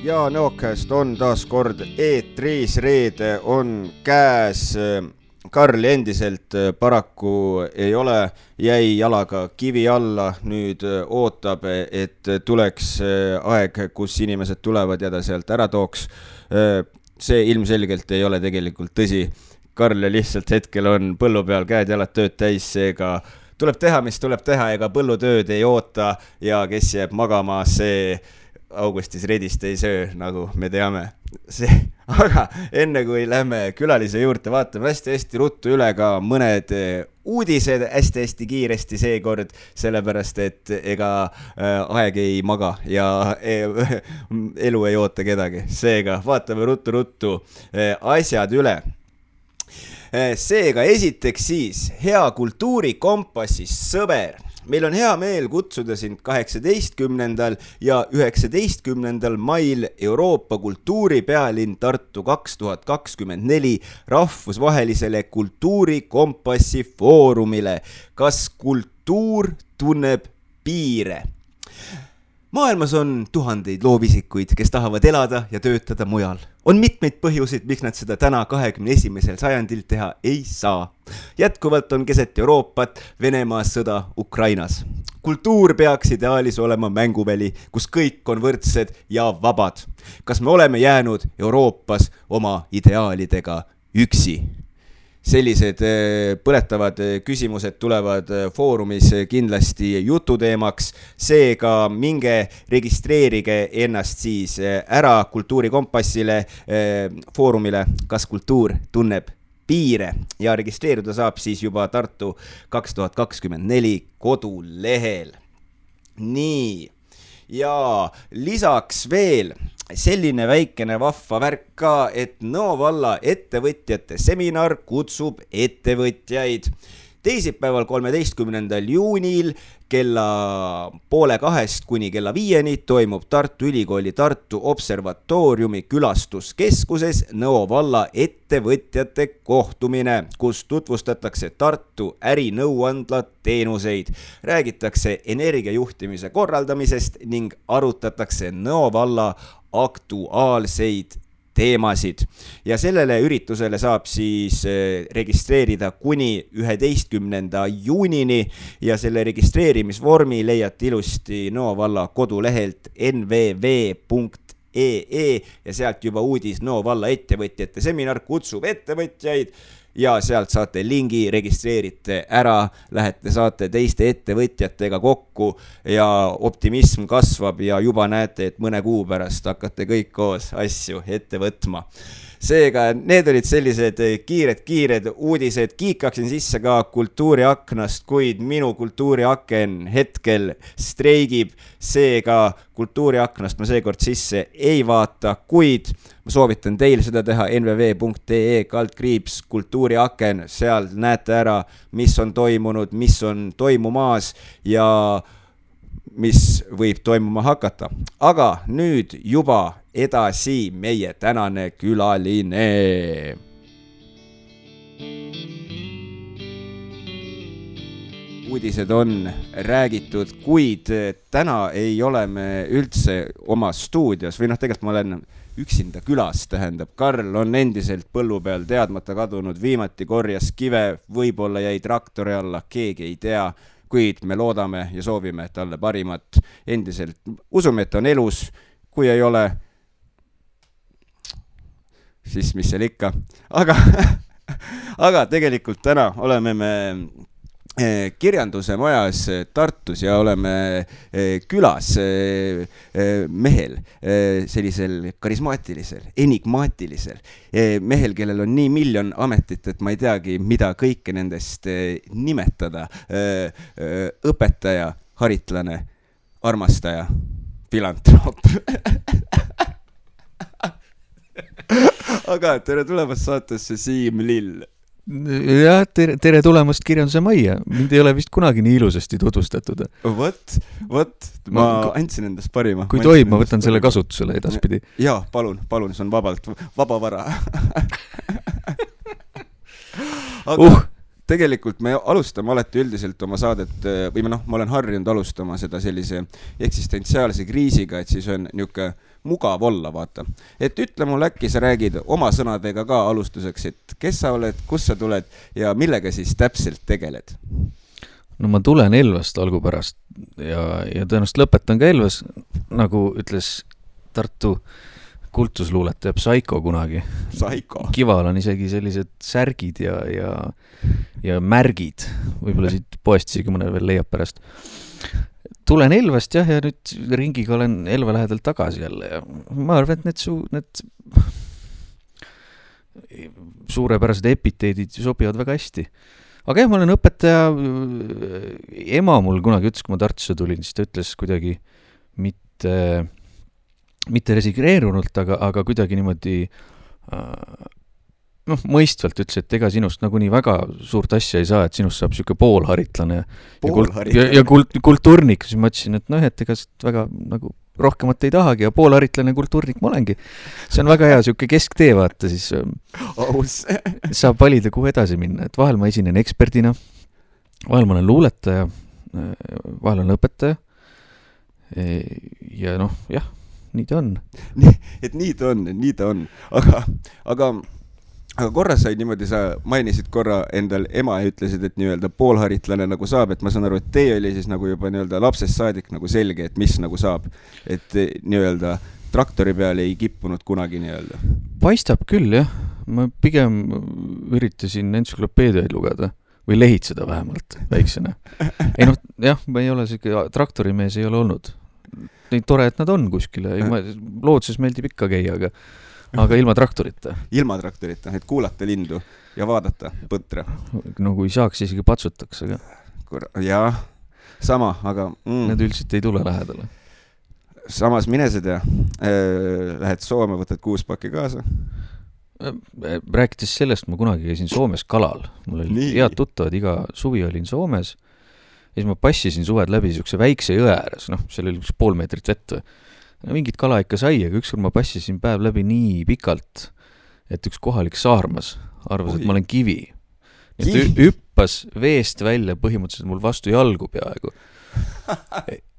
Ja Neokast on taas kord eetris, reede on käes. Karl endiselt paraku ei ole, jäi jalaga kivi alla, nüüd ootab, et tuleks aeg, kus inimesed tulevad ja ta sealt ära tooks. See ilmselgelt ei ole tegelikult tõsi. Karl lihtsalt hetkel on põllu peal käed jalad tööd täis, seega tuleb teha, mis tuleb teha, ega põllutööd ei oota ja kes jääb magama, see augustis redist ei söö, nagu me teame. Aga enne kui lähme külalise juurde, vaatame hästi ruttu üle ka mõned uudised hästi kiiresti seekord, sellepärast et ega aeg ei maga ja elu ei oota kedagi. Seega vaatame ruttu asjad üle. Seega esiteks siis hea kultuurikompassis sõber. Meil on hea meel kutsuda sind 18. ja 19. mail Euroopa kultuuripealinn Tartu 2024 rahvusvahelisele kultuurikompassi foorumile. Kas kultuur tunneb piire? Maailmas on tuhandeid loovisikuid, kes tahavad elada ja töötada mujal. On mitmeid põhjuseid, miks nad seda täna 21. sajandil teha ei saa. Jätkuvalt on keset Euroopat Venemaa sõda Ukrainas. Kultuur peaks ideaalis olema mänguväli, kus kõik on võrdsed ja vabad. Kas me oleme jäänud Euroopas oma ideaalidega üksi? Sellised põletavad küsimused tulevad foorumis kindlasti jututeemaks, seega minge registreerige ennast siis ära kultuurikompassile foorumile, kas kultuur tunneb piire ja registreeruda saab siis juba Tartu 2024 kodulehel. Nii, ja lisaks veel selline väikene vahva värk ka, et Nõo valla ettevõtjate seminar kutsub ettevõtjaid. Teisipäeval 13. juunil kella 1:30 kuni kella 5 toimub Tartu Ülikooli Tartu Observatooriumi külastuskeskuses Nõo valla ettevõtjate kohtumine, kus tutvustatakse Tartu ärinõuandla teenuseid, räägitakse energiajuhtimise korraldamisest ning arutatakse Nõo valla aktuaalseid teemasid. Ja sellele üritusele saab siis registreerida kuni 11. juunini ja selle registreerimisvormi leiate ilusti Nõo valla kodulehelt nvv.ee ja sealt juba uudis Nõo valla ettevõtjate seminar kutsub ettevõtjaid ja sealt saate lingi, registreerite ära, lähete, saate teiste ettevõtjatega kokku ja optimism kasvab ja juba näete, et mõne kuu pärast hakkate kõik koos asju ette võtma. Seega, need olid sellised kiired uudised. Kiikaksin sisse ka kultuuriaknast, kuid minu kultuuriaken hetkel streigib. Seega kultuuriaknast ma seekord sisse ei vaata, kuid ma soovitan teil seda teha nvv.ee/ kultuuriaken. Seal näete ära, mis on toimunud, mis on toimumaas ja mis võib toimuma hakata. Aga nüüd juba edasi meie tänane külaline. Uudised on räägitud, kuid täna ei ole me üldse oma stuudios või tegelikult ma olen üksinda külas, tähendab. Karl on endiselt põllu peal teadmata kadunud, viimati korjas kive, võib-olla jäi traktori alla, keegi ei tea, kuid me loodame ja soovime talle parimat. Endiselt usume, et on elus, kui ei ole, siis mis seal ikka. Aga tegelikult täna oleme me kirjanduse majas Tartus ja oleme külas mehel, sellisel karismaatilisel, enigmaatilisel mehel, kellel on nii miljon ametit, et ma ei teagi, mida kõike nendest nimetada. Õpetaja, haritlane, armastaja, filantroop. Aga tere tulemast saatesse, Siim Lill. Ja, tere tulemast kirjanduse majja. Mind ei ole vist kunagi nii ilusasti tutvustatud. Vot, ma andsin endast parima. Kui tohib, ma võtan selle kasutusele edaspidi. Jaa, palun, see on vaba vara. tegelikult me alustame alati üldiselt oma saadet või ma olen harjunud alustama seda sellise eksistentsiaalse kriisiga, et siis on niuke mugav olla, vaata. Et ütle mulle äkki sa räägid oma sõnadega ka alustuseks, et kes sa oled, kus sa tuled ja millega siis täpselt tegeled? No ma tulen Elvast algupärast ja tõenäoliselt lõpetan ka Elvas, nagu ütles Tartu kultusluuletaja Psycho kunagi. Psycho. Kival on isegi sellised särgid ja märgid. Võib-olla siit poest isegi mõne veel leiab pärast. Tulen Elvast ja nüüd ringiga olen Elva lähedal tagasi jälle. Ja ma arvan, et need suurepärased epiteedid sobivad väga hästi. Aga jah, ma olen õpetaja. Ema mul kunagi ütles, kui ma Tartusse tulin, siis ta ütles kuidagi mitte resigreerunult, aga kuidagi niimoodi mõistvalt ütles, et ega sinust nagunii väga suurt asja ei saa, et sinust saab siuke poolharitlane ja kulturnik. Siis ma ütlesin, et et ega väga nagu rohkemat ei tahagi ja poolharitlane kulturnik ma olengi. See on väga hea siuke kesktee, vaata siis saab valida, kuhu edasi minna. Et vahel ma esinen eksperdina, vahel ma olen luuletaja, vahel on õpetaja ja jah, nii ta on. Nii ta on. Aga korra sai niimoodi, sa mainisid korra endal ema ja ütlesid, et nii-öelda poolharitlane nagu saab, et ma saan aru, et teie oli siis nagu juba nii-öelda lapsest saadik nagu selge, et mis nagu saab. Et nii-öelda traktori peale ei kippunud kunagi nii-öelda. Paistab küll, jah. Ma pigem üritasin entsüklopeediaid lugeda või lehitseda vähemalt väiksena. Jah, ma ei ole traktorimees ei ole olnud. Nii tore, et nad on kuskile. Loodses meeldib ikka käia, aga ilma traktorita. Ilma traktorita, et kuulata lindu ja vaadata põtra. No kui saaks, isegi patsutaks, aga... Jah, sama, aga... Need üldiselt ei tule lähedale. Samas mine seda, lähed Soome, võtad 6 pakki kaasa. Rääkides sellest, ma kunagi käisin Soomes kalal. Mul oli head tuttavad, iga suvi olin Soomes. Ja siis ma passisin suved läbi siukse väikse jõe ääres, seal oli 1,5 meetrit vett. Mingit kala ikka sai, aga ükskord ma passisin päev läbi nii pikalt, et üks kohalik saarmas arvas, et ma olen kivi. Hüppas veest välja põhimõtteliselt mul vastu jalgu peaaegu.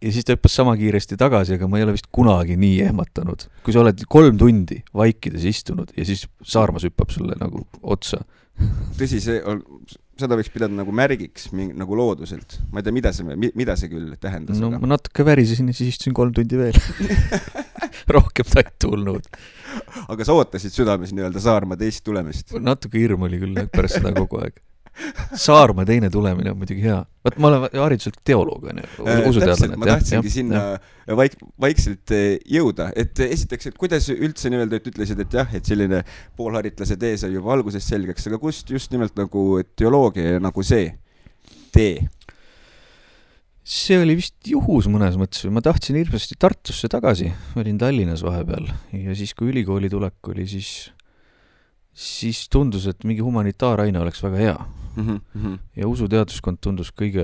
Ja siis ta hüppas sama kiiresti tagasi, aga ma ei ole vist kunagi nii ehmatanud. Kui sa oled 3 tundi vaikides istunud ja siis saarmas hüppab sulle nagu otsa. Tõsi, seda võiks pidada nagu märgiks nagu looduselt. Ma ei tea, mida see küll tähendas. No ma natuke värisesin ja siis istusin 3 tundi veel. Rohkem ta ei tulnud. Aga sa ootasid südames nii-öelda Saarma teist tulemist? Natuke hirm oli küll pärast seda kogu aeg. Saarma teine tulemine on muidugi hea. Vaat ma olen hariduselt teoloog, usuteadlane. Ma tahtsingi sinna vaikselt jõuda. Et esiteks, et kuidas üldse nii-öelda ütlesid, et jah, et selline poolharitlase tee sai juba alguses selgeks, aga kust just nimelt nagu teoloogia nagu see tee? See oli vist juhus mõnes mõttes. Ma tahtsin hirmsasti Tartusse tagasi. Olin Tallinnas vahepeal ja siis, kui ülikooli tulek oli, siis tundus, et mingi humanitaaraine oleks väga hea. Ja usuteaduskond tundus kõige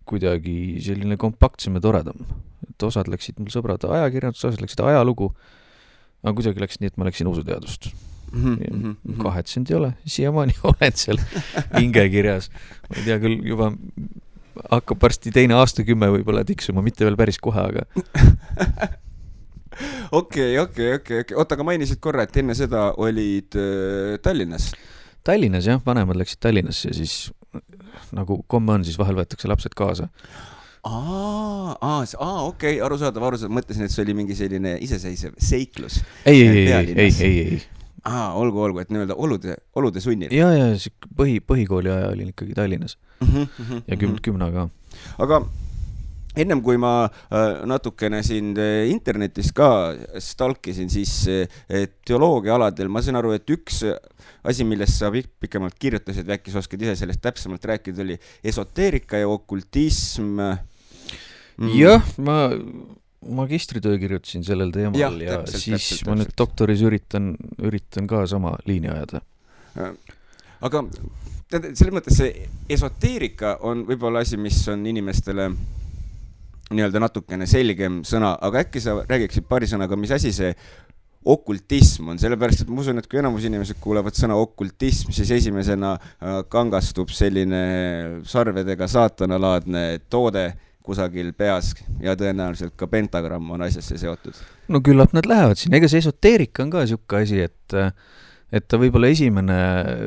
kuidagi selline kompaktsem ja toredam. Et osad läksid mul sõbrad ajakirjandus, osad läksid ajalugu, aga kuidagi läks nii, et ma läksin usuteadust. Kahetsenud ei ole, siiamaani olen seal hingekirjas. Ma ei tea küll, juba hakkab varsti teine aastakümme võib-olla tiksuma, mitte veel päris kohe, aga... Okei. Oota, aga mainisid korra, et enne seda olid Tallinnas. Tallinnas, jah, vanemad läksid Tallinnasse ja siis nagu komme on, siis vahel võetakse lapsed kaasa. Okei, arusaadav. Mõtlesin, et see oli mingi selline iseseisev seiklus. Ei. Olgu, et nii-öelda olude sunnil. Ja põhikooli aja olin ikkagi Tallinnas. Ja 10 ka. Aga ennem kui ma natukene sind internetis ka stalkisin, siis teoloogia aladel, ma saan aru, et üks asi, millest sa pikemalt kirjutasid, äkki sa oskad ise sellest täpsemalt rääkida, oli esoteerika ja okultism. Jah, ma magistritöö kirjutasin sellel teemal ja täpselt. Ma nüüd doktoris üritan ka sama liini ajada. Aga selles mõttes see esoteerika on võib-olla asi, mis on inimestele nii-öelda natukene selgem sõna, aga äkki sa räägiksid paari sõnaga, mis asi see okultism on, sellepärast, et ma usun, et kui enamus inimesed kuulevad sõna okultism, siis esimesena kangastub selline sarvedega saatanalaadne toode kusagil peas ja tõenäoliselt ka pentagramm on asjasse seotud. No küllap nad lähevad siin, ega see esoteerika on ka siuke asi, et ta võib-olla esimene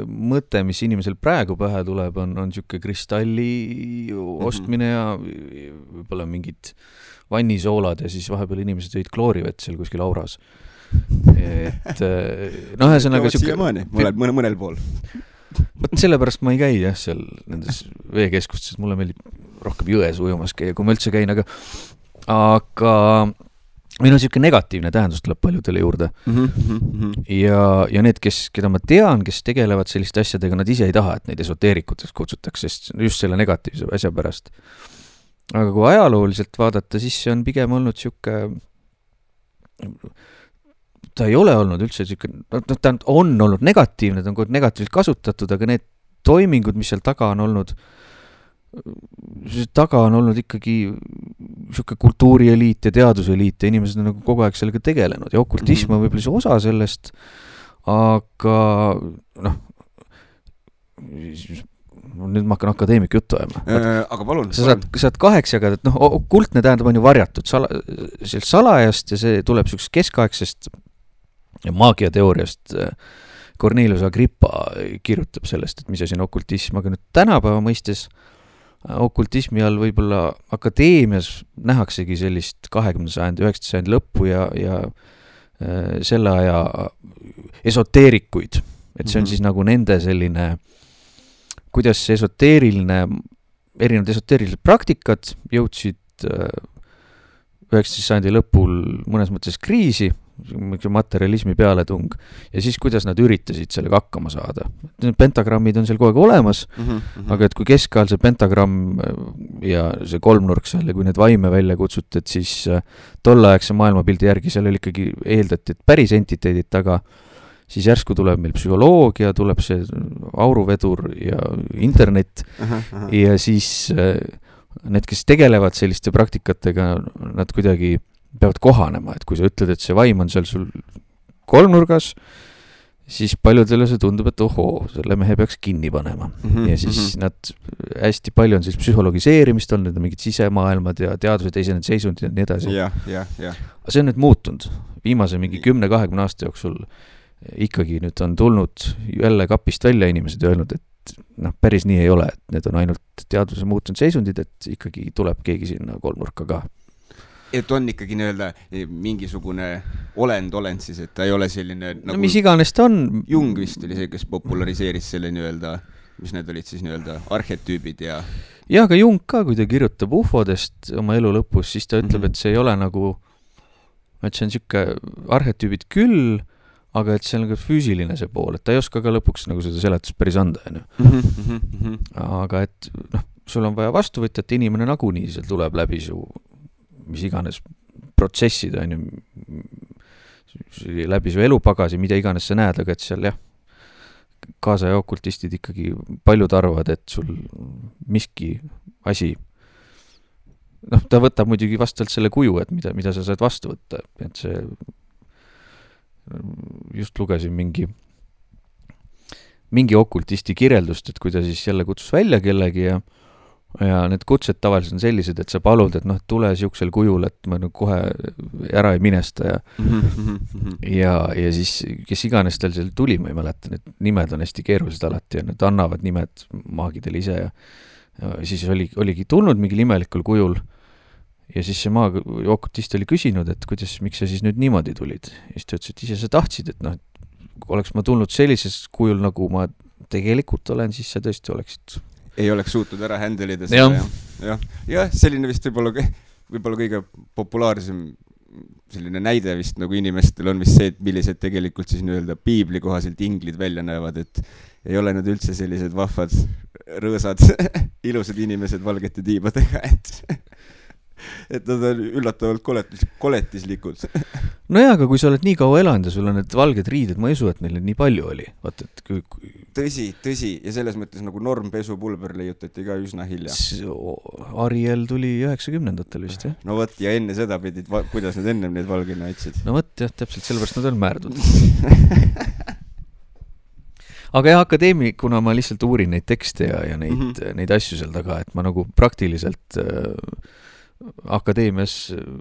mõte, mis inimesel praegu pähe tuleb, on siuke kristalli ostmine ja võib-olla mingid vannisoolad ja siis vahepeal inimesed jõid kloorivett seal kuskil auras. Et noh, ühesõnaga siiamaani, mõnel pool. Võt sellepärast ma ei käi jah seal nendes veekeskustes, mulle meeldib rohkem jões ujumas käia, kui ma üldse käin, aga meil on siuke negatiivne tähendus tuleb paljudele juurde. Ja need, keda ma tean, kes tegelevad selliste asjadega, nad ise ei taha, et neid esoteerikuteks kutsutakse, sest just selle negatiivse asja pärast. Aga kui ajalooliselt vaadata, siis see on pigem olnud siuke, ta ei ole olnud üldse siuke, ta on olnud negatiivne, ta on negatiivselt kasutatud, aga need toimingud, mis seal taga on olnud ikkagi siuke kultuurieliit ja teaduseliit ja inimesed on nagu kogu aeg sellega tegelenud ja okultism on võib-olla see osa sellest, aga noh, nüüd ma hakkan akadeemik juttu ajama. Aga palun. Sa saad 8 jagada, et okultne tähendab on ju varjatud salajast ja see tuleb siuksest keskaegsest maagiateooriast. Cornelius Agrippa kirjutab sellest, et mis asi on okultism, aga nüüd tänapäeva mõistes okultismi all võib-olla akadeemias nähaksegi sellist 20. sajandi, 19. sajandi lõppu ja selle aja esoteerikuid. Et see on siis nagu nende selline, kuidas see erinevad esoteerilised praktikad jõudsid 19. sajandi lõpul mõnes mõttes kriisi, materialismi pealetung ja siis kuidas nad üritasid sellega hakkama saada. Pentagrammid on seal kogu aeg olemas, aga et kui keskajal see pentagramm ja see kolmnurk seal ja kui need vaime välja kutsuti, et siis tolleaegse maailmapildi järgi seal oli ikkagi eeldati, et päris entiteedid taga, siis järsku tuleb meil psühholoogia, tuleb see auruvedur ja internet ja siis need, kes tegelevad selliste praktikatega, nad kuidagi peavad kohanema, et kui sa ütled, et see vaim on seal sul kolmnurgas, siis paljudele see tundub, et ohoo, selle mehe peaks kinni panema. Ja siis nad hästi palju on siis psühhologiseerimist olnud, need on mingid sisemaailmad ja teaduse teised seisundid ja nii edasi. Aga see on nüüd muutunud. Viimase mingi 10-20 aasta jooksul ikkagi nüüd on tulnud jälle kapist välja inimesed ja öelnud, et päris nii ei ole, et need on ainult teaduse muutunud seisundid, et ikkagi tuleb keegi sinna kolmnurka ka. Et on ikkagi nii-öelda mingisugune olend siis, et ta ei ole selline nagu mis iganes ta on. Jung vist oli see, kes populariseeris selle nii-öelda, mis need olid siis nii-öelda arhetüübid ja aga Jung ka, kui ta kirjutab ufodest oma elu lõpus, siis ta ütleb, et see ei ole nagu, et see on siuke arhetüübid küll, aga et see on nagu füüsiline see pool, et ta ei oska ka lõpuks nagu seda seletust päris anda. Aga et sul on vaja vastuvõtjat, inimene nagunii seal tuleb läbi su mis iganes protsessid on ju läbi su elupagasi, mida iganes sa näed, aga et seal jah, kaasaja okultistid ikkagi paljud arvavad, et sul miski asi ta võtab muidugi vastavalt selle kuju, et mida sa saad vastu võtta, et see just lugesin mingi okultisti kirjeldust, et kui ta siis jälle kutsus välja kellegi ja need kutsed tavaliselt on sellised, et sa palud, et tule siuksel kujul, et ma kohe ära ei minesta ja siis kes iganes tal seal tuli, ma ei mäleta, need nimed on hästi keerulised alati ja nad annavad nimed maagidele ise ja siis oligi tulnud mingi imelikul kujul ja siis see okultist oli küsinud, et miks sa siis nüüd niimoodi tulid ja siis ta ütles, et ise sa tahtsid, et oleks ma tulnud sellises kujul, nagu ma tegelikult olen, siis sa tõesti oleksid ei oleks suutnud ära händelida seda. Ja selline vist võib-olla kõige populaarsem selline näide vist nagu inimestel on vist see, et millised tegelikult siis nii-öelda piibli kohaselt inglid välja näevad, et ei ole nad üldse sellised vahvad, rõõsad, ilusad inimesed valgete tiibadega, et nad on üllatavalt koletislikud. Aga kui sa oled nii kaua elanud ja sul on need valged riided, ma ei usu, et neil nii palju oli. Vaata, et tõsi ja selles mõttes nagu normpesupulber leiutati ka üsna hilja. Ariel tuli 90-ndatel vist, jah? No võt, ja enne seda pidid, kuidas nad ennem neid valgina aitsid? No võt, jah, täpselt sellepärast nad on määrdud. Aga jah, akadeemikuna ma lihtsalt uurin neid tekste ja neid asju seal taga, et ma nagu praktiliselt akadeemias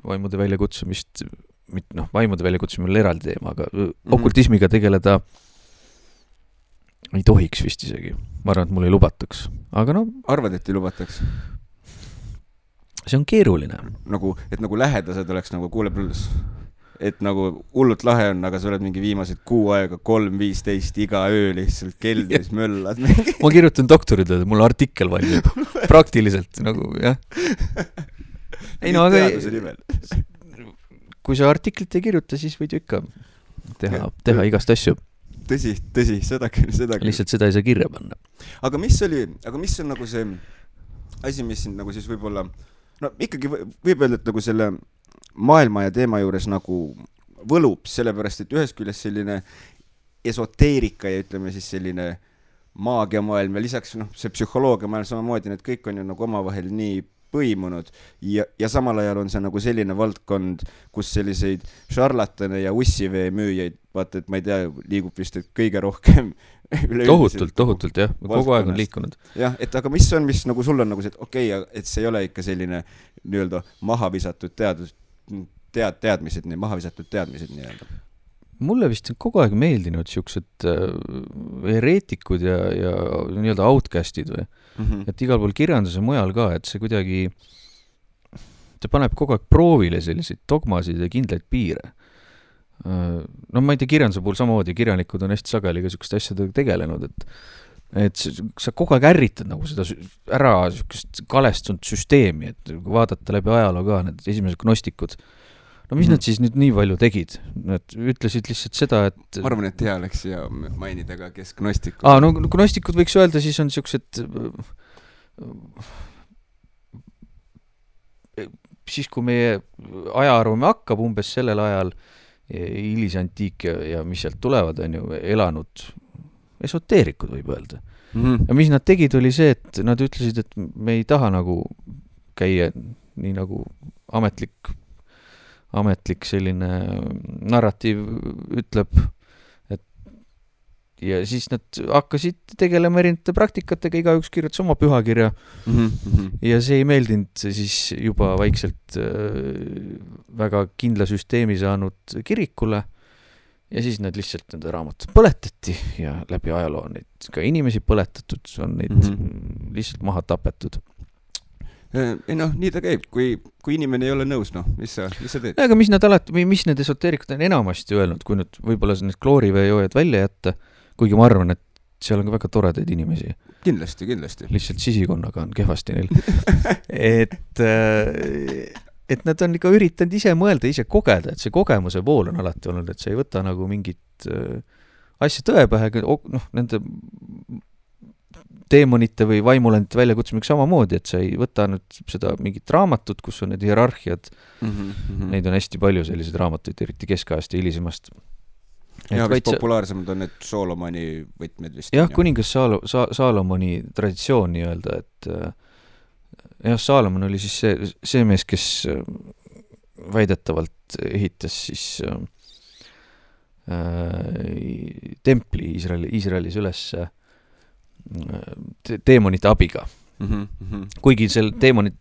vaimude väljakutsumist, vaimude väljakutsumine oli eraldi teema, aga okultismiga tegeleda ei tohiks vist isegi. Ma arvan, et mul ei lubataks. Aga arvad, et ei lubataks? See on keeruline. Et nagu lähedased oleks nagu kuule pluss. Et nagu hullult lahe on, aga sa oled mingi viimased 6 aega 3:15 iga öö lihtsalt keldris möllad. Ma kirjutan doktoritööd, mul artikkel valmib. Praktiliselt nagu, jah. Ei no, aga kui sa artiklit ei kirjuta, siis võid ju ikka teha igast asju. Tõsi, seda küll. Lihtsalt seda ei saa kirja panna. Aga mis on nagu see asi, mis siin nagu siis võib-olla, ikkagi võib öelda, et nagu selle maailma ja teema juures nagu võlub, sellepärast, et ühest küljest selline esoteerika ja ütleme siis selline maagiamaailm ja lisaks see psühholoogiamaailm samamoodi, need kõik on ju nagu omavahel nii põimunud ja samal ajal on see nagu selline valdkond, kus selliseid šarlatane ja ussivee müüjaid, vaata, et ma ei tea, liigub vist kõige rohkem tohutult, jah, kogu aeg on liikunud. Jah, et aga mis nagu sul on nagu see, et okei, et see ei ole ikka selline nii-öelda mahavisatud teadmised nii-öelda. Mulle vist on kogu aeg meeldinud siuksed hereetikud ja nii-öelda outcastid või. Et igal pool kirjanduse mujal ka, et see kuidagi see paneb kogu aeg proovile selliseid dogmasid ja kindlaid piire. Ma ei tea, kirjanduse puhul samamoodi, kirjanikud on hästi sageli ka siukest asjadega tegelenud, et sa kogu aeg ärritad nagu seda ära siukest kalestunud süsteemi, et vaadata läbi ajaloo ka need esimesed gnostikud. Mis nad siis nüüd nii palju tegid? Nad ütlesid lihtsalt seda, et ma arvan, et hea oleks ja mainida ka, kes gnostikud. Gnostikud võiks öelda, siis on siuksed siis kui meie ajaarvame hakkab umbes sellel ajal hilisantiik ja mis sealt tulevad, on ju elanud esoteerikud, võib öelda. Ja mis nad tegid, oli see, et nad ütlesid, et me ei taha nagu käia nii nagu ametlik selline narratiiv ütleb, et ja siis nad hakkasid tegelema erinevate praktikatega, igaüks kirjutas oma pühakirja ja see ei meeldinud siis juba vaikselt väga kindla süsteemi saanud kirikule ja siis nad lihtsalt nende raamatud põletati ja läbi ajaloo on neid ka inimesi põletatud, on neid lihtsalt maha tapetud. Nii ta käib, kui inimene ei ole nõus, mis sa teed? Aga mis need esoteerikud on enamasti öelnud, kui nüüd võib-olla need klooriveejoojad välja jätta, kuigi ma arvan, et seal on ka väga toredaid inimesi. Kindlasti. Lihtsalt sisikonnaga on kehvasti neil. et nad on ikka üritanud ise mõelda, ise kogeda, et see kogemuse pool on alati olnud, et sa ei võta nagu mingit asja tõepähe, nende teemonite või vaimulendite väljakutsumiseks samamoodi, et sa ei võta nüüd seda mingit raamatut, kus on need hierarhiad. Neid on hästi palju selliseid raamatuid, eriti keskajast ja hilisemast. Ja vist populaarsemad on need Solomoni võtmed vist. Jah, kuningas Salomoni traditsioon nii-öelda, et jah, Salomon oli siis see mees, kes väidetavalt ehitas siis templi Iisraelis üles teemonite abiga. Kuigi seal teemonid,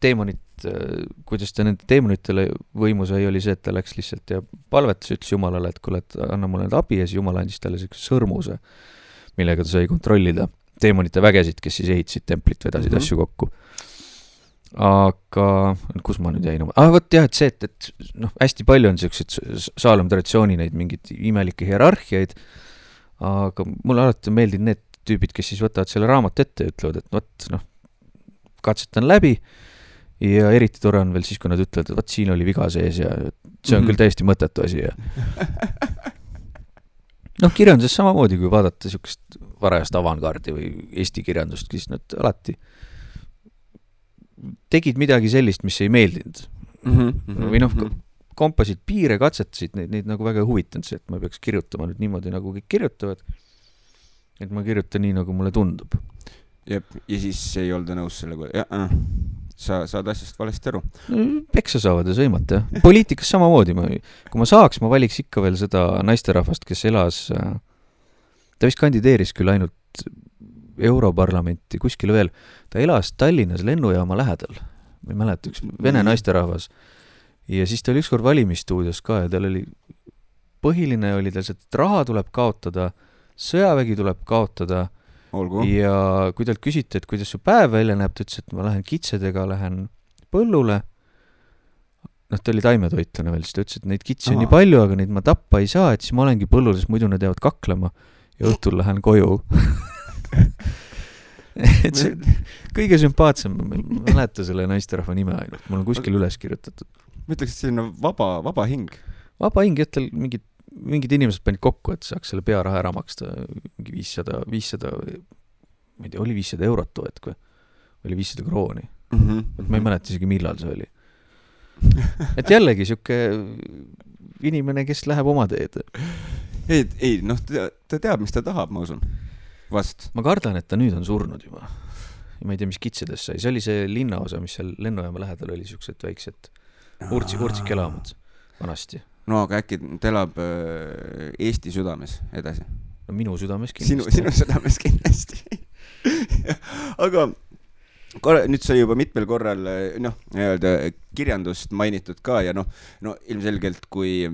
kuidas ta nende teemonitele võimu sai, oli see, et ta läks lihtsalt ja palvetas, ütles Jumalale, et kuule, et anna mulle need abi ja siis Jumal andis talle sõrmuse, millega ta sai kontrollida teemonite vägesid, kes siis ehitasid templit, vedasid asju kokku. Aga kus ma nüüd jäin? Võt jah, et see, et hästi palju on sellised Saalom traditsiooni neid mingid imelikke hierarhiaid, aga mulle alati meeldinud need tüübid, kes siis võtavad selle raamat ette ja ütlevad, et katsetan läbi ja eriti tore on veel siis, kui nad ütlevad, et siin oli viga sees ja see on küll täiesti mõttetu asi. Ja kirjanduses samamoodi, kui vaadata siukest varajast avantgardi või eesti kirjandust, siis nad alati tegid midagi sellist, mis ei meeldinud. Või kompasid piire, katsetasid neid nagu väga huvitanud see, et ma peaks kirjutama nüüd niimoodi, nagu kõik kirjutavad. et ma kirjutan nii, nagu mulle tundub. Jep, ja siis ei olda nõus sellega. Sa saad asjast valesti aru. Peksa saavad ja sõimata. Poliitikas samamoodi. Kui ma saaks, ma valiks ikka veel seda naisterahvast, kes elas, ta vist kandideeris küll ainult Europarlamenti, kuskile veel. Ta elas Tallinnas lennujaama lähedal. Ma ei mäleta, üks vene naisterahvas. Ja siis ta oli ükskord valimisstuudios ka ja tal oli, põhiline oli tal see, et raha tuleb kaotada, sõjavägi tuleb kaotada. Olgu. Ja kui talt küsiti, et kuidas su päev välja näeb, ta ütles, et ma lähen kitsedega, lähen põllule. Ta oli taimetoitlane veel, siis ta ütles, et neid kitsi on nii palju, aga neid ma tappa ei saa, et siis ma olengi põllul, sest muidu nad jäävad kaklema ja õhtul lähen koju. Et see kõige sümpaatsem, ma mäleta selle naisterahva nime ainult, mul on kuskil üles kirjutatud. Ma ütleks, et selline vaba hing. Vaba hing, et tal mingid inimesed panid kokku, et saaks selle pearaha ära maksta 500, ma ei tea, oli 500 eurot toet, kui oli 500 krooni. Ma ei mäleta isegi, millal see oli. Et jällegi siuke inimene, kes läheb oma teed. Ei, ta teab, mis ta tahab, ma usun. Vast. Ma kardan, et ta nüüd on surnud juba. Ja ma ei tea, mis kitsedes sai. See oli see linnaosa, mis seal lennujaama lähedal oli, siuksed väiksed urtsikelamud vanasti. No aga äkki ta elab Eesti südames edasi? No minu südames kindlasti. Sinu südames kindlasti. Aga nüüd sai juba mitmel korral kirjandust mainitud ka ja ilmselgelt kui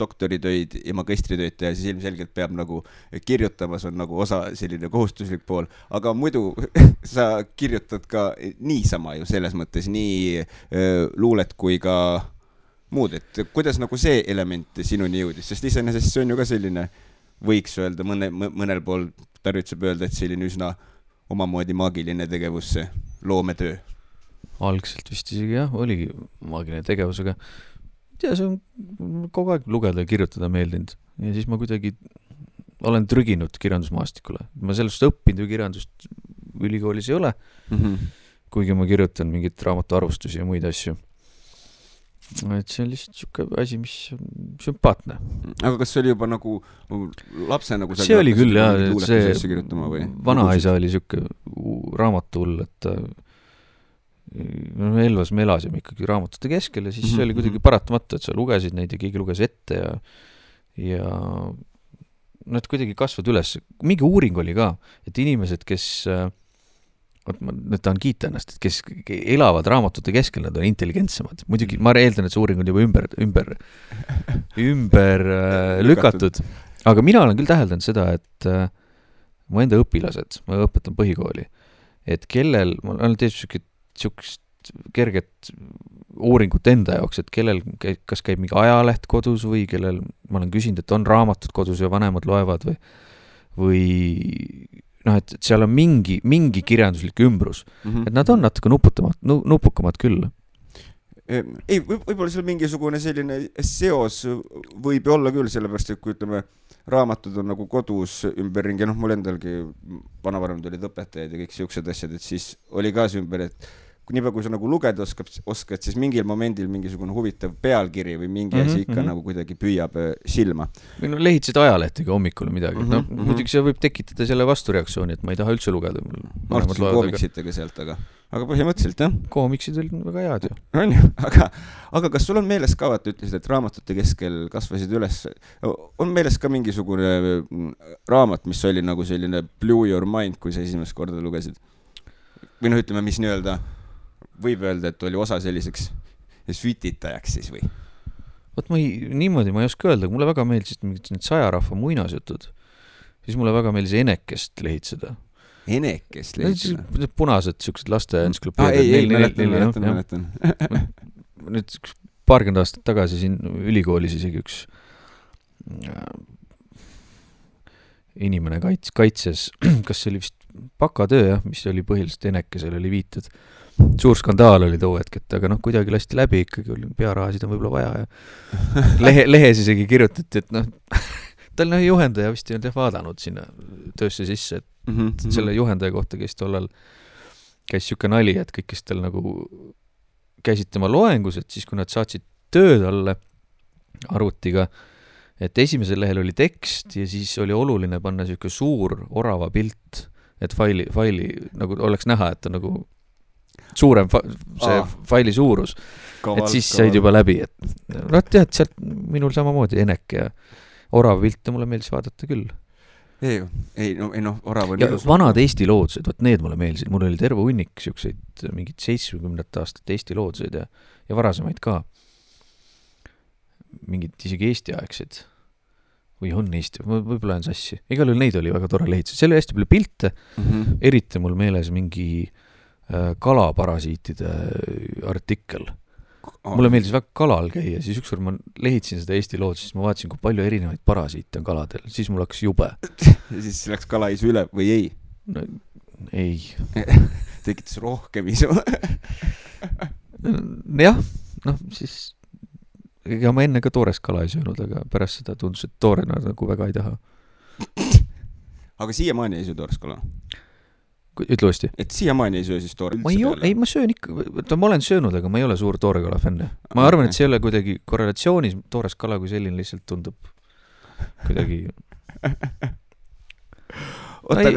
doktoritöid ja magistritöid teha, siis ilmselgelt peab nagu kirjutamas on nagu osa selline kohustuslik pool, aga muidu sa kirjutad ka niisama ju selles mõttes nii luulet kui ka muud, et kuidas nagu see element sinuni jõudis, sest iseenesest see on ju ka selline, võiks öelda mõnel pool tarvitseb öelda, et selline üsna omamoodi maagiline tegevus, see loometöö. Algselt vist isegi jah, oligi maagiline tegevus, aga tea, see on kogu aeg lugeda ja kirjutada meeldinud. Ja siis ma kuidagi olen trüginud kirjandusmaastikule. Ma sellest õppinud ju kirjandust ülikoolis ei ole, kuigi ma kirjutan mingit raamatu arvustusi ja muid asju. Et see on lihtsalt siuke asi, mis on sümpaatne. Aga kas see oli juba nagu lapse nagu see oli küll jah, see vanaisa oli siuke raamatuhull, et Elvas me elasime ikkagi raamatute keskel ja siis see oli kuidagi paratamata, et sa lugesid neid ja keegi luges ette ja nad kuidagi kasvad üles. Mingi uuring oli ka, et inimesed, kes nüüd tahan kiita ennast, et kes elavad raamatute keskel, nad on intelligentsemad. Muidugi ma eeldan, et see uuring on juba ümber lükatud. Aga mina olen küll täheldanud seda, et mu enda õpilased, ma õpetan põhikooli, et kellel, ma olen teinud siukest kerget uuringut enda jaoks, et kellel kas käib mingi ajaleht kodus või kellel, ma olen küsinud, et on raamatud kodus ja vanemad loevad või et seal on mingi kirjanduslik ümbrus. Et nad on natuke nupukamad küll. Ei, võib-olla seal mingisugune selline seos võib olla küll, sellepärast, et kui ütleme, raamatud on nagu kodus ümberringi, mul endalgi vanavanemad olid õpetajad ja kõik siuksed asjad, et siis oli ka see ümber, et nii palju, kui sa nagu lugeda oskad, siis mingil momendil mingisugune huvitav pealkiri või mingi asi ikka nagu kuidagi püüab silma. Või lehitsid ajalehtega hommikul midagi. Muidugi see võib tekitada selle vastureaktsiooni, et ma ei taha üldse lugeda. Ma arvasin koomiksitega sealt, aga põhimõtteliselt, jah. Koomiksid olid väga head ju. On ju, aga kas sul on meeles ka, et ütlesid, et raamatute keskel kasvasid üles, on meeles ka mingisugune raamat, mis oli nagu selline blew your mind, kui sa esimest korda lugesid? Või ütleme, mis nii-öelda võib öelda, et oli osa selliseks sütitajaks siis või? Võt niimoodi ma ei oska öelda, mulle väga meeldisid need sajarahva muinasjutud, siis mulle väga meeldis Enekest lehitseda. Enekest lehitseda? Need punased siuksed laste mäletan. Nüüd paarkümmend aastat tagasi siin ülikoolis isegi üks inimene kaitses, kas see oli vist bakatöö, mis oli põhiliselt Enekesel oli viitud. Suur skandaal oli too hetk, aga kuidagi lasti läbi, ikkagi oli pearahasid on võib-olla vaja ja lehes isegi kirjutati, et tal juhendaja vist ei olnud vaadanud sinna töösse sisse, et selle juhendaja kohta käis tollal siuke nali, et kõik, kes tal nagu käisid tema loengus, et siis kui nad saatsid tööd alle arvutiga, et esimesel lehel oli tekst ja siis oli oluline panna siuke suur orava pilt, et faili nagu oleks näha, et on nagu suurem faili suurus. Et siis said juba läbi, et tead, sealt minul samamoodi Enek ja orava pilte mulle meeldis vaadata küll. Orav on ja vanad Eesti loodused, võt need mulle meeldisid, mul oli terve hunnik siukseid mingid 70 aastat Eesti loodused ja varasemaid ka. Mingid isegi Eesti aegsed või on Eesti, võib-olla on sassi. Igal juhul neid oli väga tore lehitada. Seal oli hästi palju pilte, eriti mul meeles mingi kalaparasiitide artikkel. Mulle meeldis väga kalal käia, siis ükskord ma lehitsin seda Eesti loodust, siis ma vaatasin, kui palju erinevaid parasiite on kaladel, siis mul hakkas jube. Ja siis läks kala isu üle või ei? No, ei. Tekitas rohkem isu. Jah, siis ega ma enne ka toorest kala ei söönud, aga pärast seda tundus, et toorena nagu väga ei taha. Aga siiamaani ei söö toorest kala? Ütle uuesti. Et siiamaani ei söö siis toore ei, ma söön ikka, ma olen söönud, aga ma ei ole suur toorekala fänne. Ma arvan, et see ei ole kuidagi korrelatsioonis, toores kala kui selline lihtsalt tundub kuidagi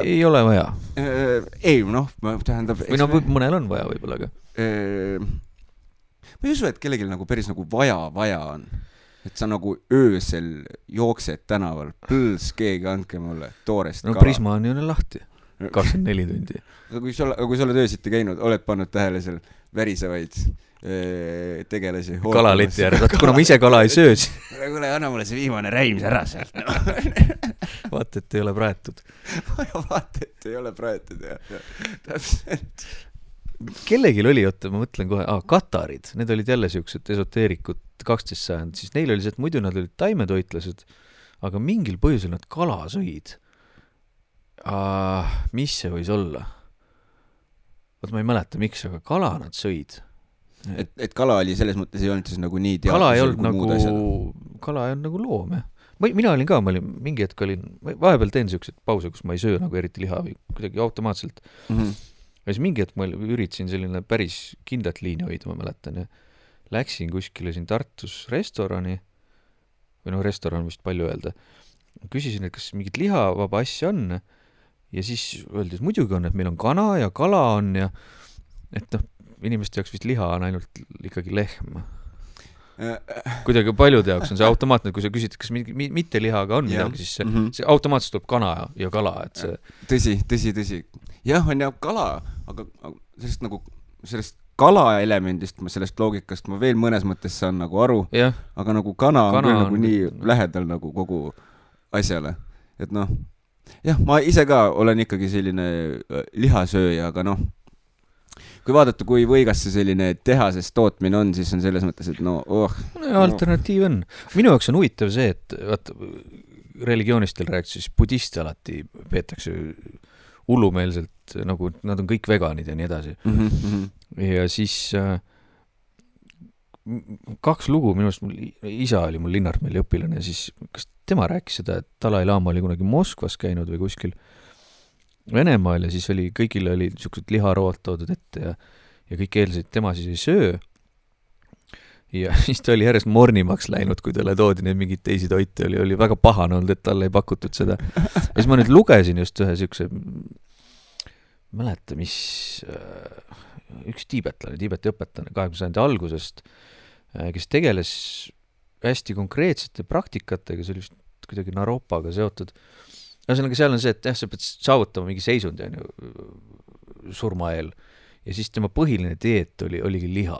ei ole vaja. Ei, tähendab või mõnel on vaja võib-olla, aga ma ei usu, et kellelgi nagu päris nagu vaja on. Et sa nagu öösel jooksed tänaval, keegi andke mulle toorest kala. Prisma on ju lahti 24 tundi. Aga kui sa oled öösiti käinud, oled pannud tähele seal värisevaid tegelasi. Kalaleti järg, kuna ma ise kala ei söö. Kuule, anna mulle see viimane räim ära sealt. Vaata, et ei ole praetud. Vaata, et ei ole praetud, jah. Täpselt. Kellegil oli, ma mõtlen kohe, katarid, need olid jälle siuksed esoteerikud 12 sajand, siis neil oli see, et muidu nad olid taimetoitlased, aga mingil põhjusel nad kala sõid. Mis see võis olla? Võt ma ei mäleta, miks, aga kala nad sõid. Et kala oli selles mõttes ei olnud siis nagu nii kala ei olnud nagu loom, jah. Mina olin ka, mingi hetk vahepeal teen siuksed pause, kus ma ei söö nagu eriti liha või kuidagi automaatselt. Ja siis mingi hetk ma üritasin selline päris kindlat liini hoida, ma mäletan, ja läksin kuskile siin Tartus restorani, või restoran vist palju öelda. Küsisin, et kas mingit lihavaba asja on, ja siis öeldi, et muidugi on, et meil on kana ja kala on ja et inimeste jaoks vist liha on ainult ikkagi lehm. Kuidagi paljude jaoks on see automaatne, kui sa küsid, kas mitte lihaga on midagi, siis see automaatselt tuleb kana ja kala. Et see... Tõsi. Jah, on ja kala, aga sellest kala elemendist, sellest loogikast ma veel mõnes mõttes saan nagu aru, aga nagu kana on küll nagu nii lähedal nagu kogu asjale. Et jah, ma ise ka olen ikkagi selline lihasööja, aga kui vaadata, kui võigas see selline tehases tootmine on, siis on selles mõttes, et alternatiiv on. Minu jaoks on huvitav see, et religionistel rääkis, siis budiste alati peetakse hullumeelselt, nagu nad on kõik veganid ja nii edasi. Ja siis 2 lugu, minu arust isa oli mul Linnartmeeli õpilane, ja siis kas tema rääkis seda, et Dalai Lama oli kunagi Moskvas käinud või kuskil Venemaal ja siis kõigile oli niisugused liharood toodud ette ja kõik eeldasid, tema siis ei söö. Ja siis ta oli järjest mornimaks läinud, kui talle toodi neid mingid teisi toite, oli väga pahane olnud, et talle ei pakutud seda. Ja siis ma nüüd lugesin just ühe siukse, mäleta, mis üks Tiibeti õpetlane 20. sajandi algusest, kes tegeles hästi konkreetsete praktikatega, see oli vist kuidagi Naropaga seotud. Ühesõnaga seal on see, et sa pead saavutama mingi seisundi surma eel ja siis tema põhiline dieet oligi liha.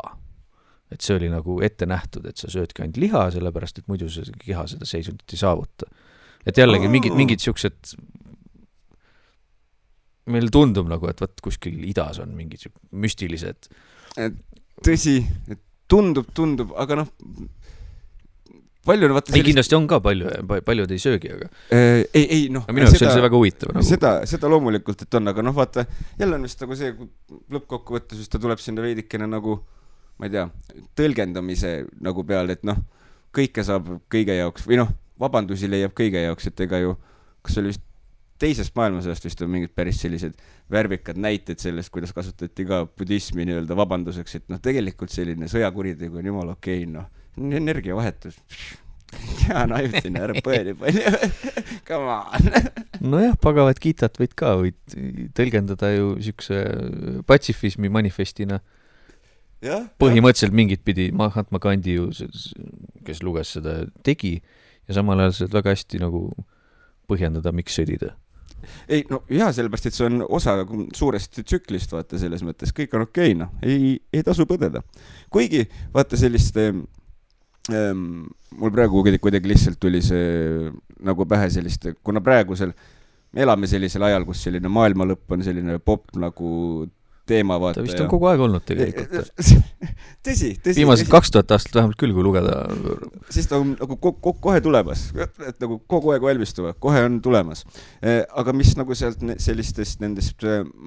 Et see oli nagu ette nähtud, et sa söödki ainult liha, sellepärast, et muidu see keha seda seisundit ei saavuta. Et jällegi mingid siuksed, meil tundub nagu, et võt kuskil idas on mingid müstilised. Tõsi, tundub, aga palju ei, kindlasti on ka paljud ei söögi, aga minu jaoks oli see väga huvitav seda loomulikult, et on, aga vaata jälle on vist nagu see, kui lõppkokkuvõttes just ta tuleb sinna veidikene nagu ma ei tea, tõlgendamise nagu peale, et kõike saab kõige jaoks või vabandusi leiab kõige jaoks, et ega ju kas oli vist teisest maailmasõjast vist on mingid päris sellised värvikad näited sellest, kuidas kasutati ka budismi nii-öelda vabanduseks, et tegelikult selline sõjakuritegu on jumala okei, energiavahetus, Hea naivtine, ära põe nii palju. Come on. Nojah, pagavat Gitat võid tõlgendada ju siukse patsifismi manifestina. Põhimõtteliselt mingit pidi Mahatma Gandhi ju, kes luges seda, tegi ja samal ajal seda väga hästi nagu põhjendada, miks sõdida. Ei, no jah, sellepärast, et see on osa suurest tsüklist, vaata selles mõttes, kõik on okei, no, ei tasu põdeda. Kuigi, vaata sellist, mul praegu kuidagi lihtsalt tuli see nagu pähe sellist, kuna praegusel me elame sellisel ajal, kus selline maailma lõpp on selline pop nagu teema, vaata. Ta vist on kogu aeg olnud tegelikult. Tõsi. Viimased 2000 aastat vähemalt küll, kui lugeda. Siis ta on nagu kohe tulemas, et nagu kogu aeg valmistuva, kohe on tulemas. Aga mis nagu sealt sellistest nendest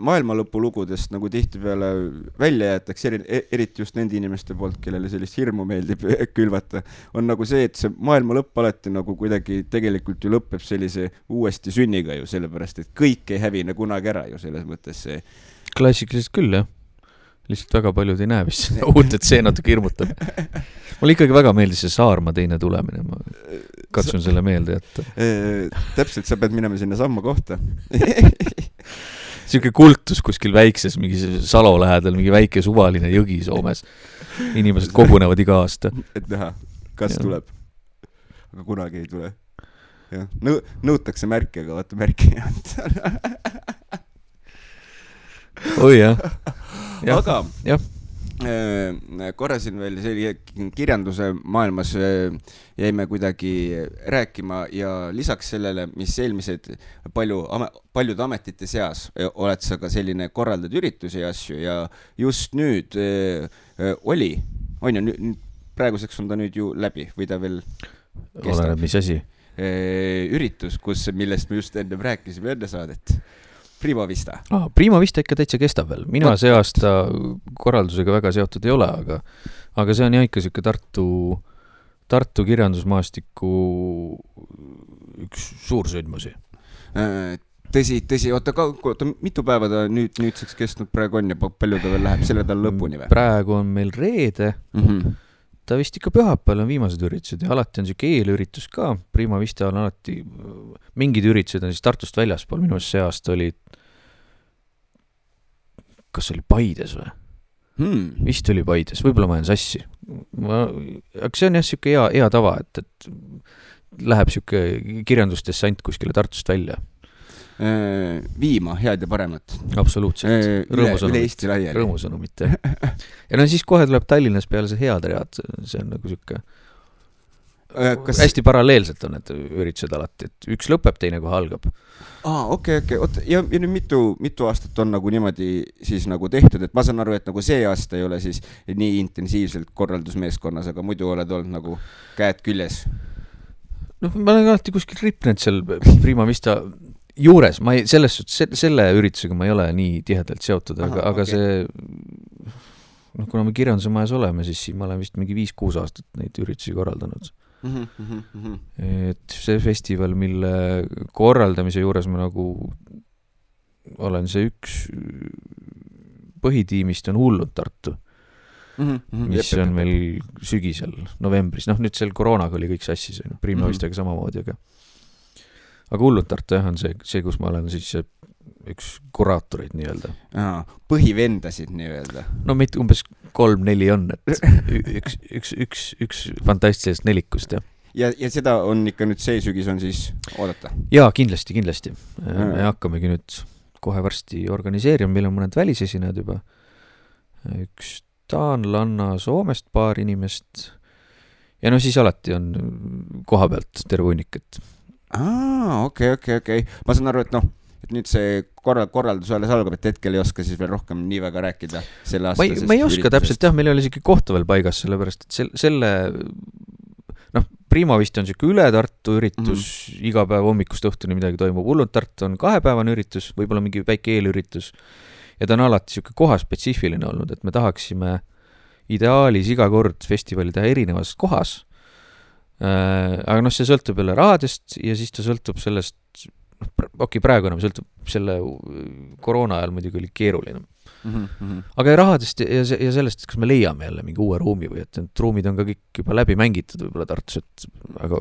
maailmalõpu lugudest nagu tihtipeale välja jäetakse, eriti just nende inimeste poolt, kellele sellist hirmu meeldib külvata, on nagu see, et see maailmalõpp alati nagu kuidagi tegelikult ju lõpeb sellise uuesti sünniga ju, sellepärast, et kõik ei hävine kunagi ära ju selles mõttes see. Klassikaliselt küll, jah. Lihtsalt väga paljud ei näe vist uut, et see natuke hirmutab. Mulle ikkagi väga meeldis see Saarma teine tulemine. Ma katsun selle meelde jätta. Täpselt, sa pead minema sinna samma kohta. Siuke kultus kuskil väikses, mingi Salo lähedal, mingi väike suvaline jõgi Soomes. Inimesed kogunevad iga aasta. Et näha, kas tuleb. Aga kunagi ei tule. Ja. Nõutakse märke, aga vaata märke ei anda. Oi jah. Aga korra siin veel kirjanduse maailmas jäime kuidagi rääkima ja lisaks sellele, mis eelmised paljud ametite seas oled sa ka selline korraldad üritusi ja asju ja just nüüd on ju, praeguseks on ta nüüd ju läbi või ta veel kestab? Oleneb, mis asi? Üritus, millest me just enne rääkisime enne saadet. Prima Vista. Prima Vista ikka täitsa kestab veel. Mina see aasta korraldusega väga seotud ei ole, aga see on jah ikka siuke Tartu kirjandusmaastiku üks suur sündmusi. Tõsi, oota, mitu päeva ta nüüdseks kestnud praegu on ja palju ta veel läheb selle tal lõpuni või? Praegu on meil reede. Ta vist ikka pühapäeval on viimased üritused ja alati on siuke eelüritus ka. Prima Vista on alati, mingid üritused on siis Tartust väljaspool. Minu see aasta oli, kas oli Paides või? Vist oli Paides, võib-olla ma olen sassi. Aga see on jah siuke hea tava, et läheb siuke kirjandusdessant kuskile Tartust välja. Viima head ja paremat. Absoluutselt. Üle Eesti laiali. Rõõmusõnumit, jah. Ja no siis kohe tuleb Tallinnas peale see head read. See on nagu siuke hästi paralleelselt on need üritused alati, et üks lõpeb, teine kohe algab. Okei. Ja nüüd mitu aastat on nagu niimoodi siis nagu tehtud, et ma saan aru, et nagu see aasta ei ole siis nii intensiivselt korraldusmeeskonnas, aga muidu oled olnud nagu käed küljes. No ma olen alati kuskil ripnenud seal Prima Vista juures, selle üritusega ma ei ole nii tihedalt seotud, aga see, kuna me kirjanduse majas oleme, siis siin ma olen vist mingi 5-6 aastat neid üritusi korraldanud. Et see festival, mille korraldamise juures ma nagu olen see üks põhitiimist on Hullud Tartu, mis on meil sügisel, novembris. Nüüd seal koroonaga oli kõik sassis, Prima Vistaga samamoodi, aga Hullud Tartu on see, kus ma olen siis üks kuraatorid nii-öelda. Põhivendasid nii-öelda. No meid umbes 3-4 on, et üks fantastilisest nelikust, jah. Ja seda on ikka nüüd see sügis on siis oodata? Jaa, kindlasti. Me hakkamegi nüüd kohe varsti organiseerima, meil on mõned välisesinejad juba. Üks taanlanna Soomest paar inimest ja no siis alati on koha pealt terve hunnik, et okei. Ma saan aru, et et nüüd see korraldus alles algab, et hetkel ei oska siis veel rohkem nii väga rääkida selle aastasest ma ei oska täpselt, jah, meil oli isegi kohta veel paigas, sellepärast, et selle Prima vist on siuke üle Tartu üritus, iga päev hommikust õhtuni midagi toimub. Hullud Tartu on 2-päevane üritus, võib-olla mingi väike eelüritus ja ta on alati siuke kohaspetsiifiline olnud, et me tahaksime ideaalis iga kord festivali teha erinevas kohas. Aga see sõltub jälle rahadest ja siis ta sõltub sellest, praegu enam sõltub, selle koroona ajal muidugi oli keeruline. Aga rahadest ja sellest, et kas me leiame jälle mingi uue ruumi või et need ruumid on ka kõik juba läbi mängitud võib-olla Tartus, et aga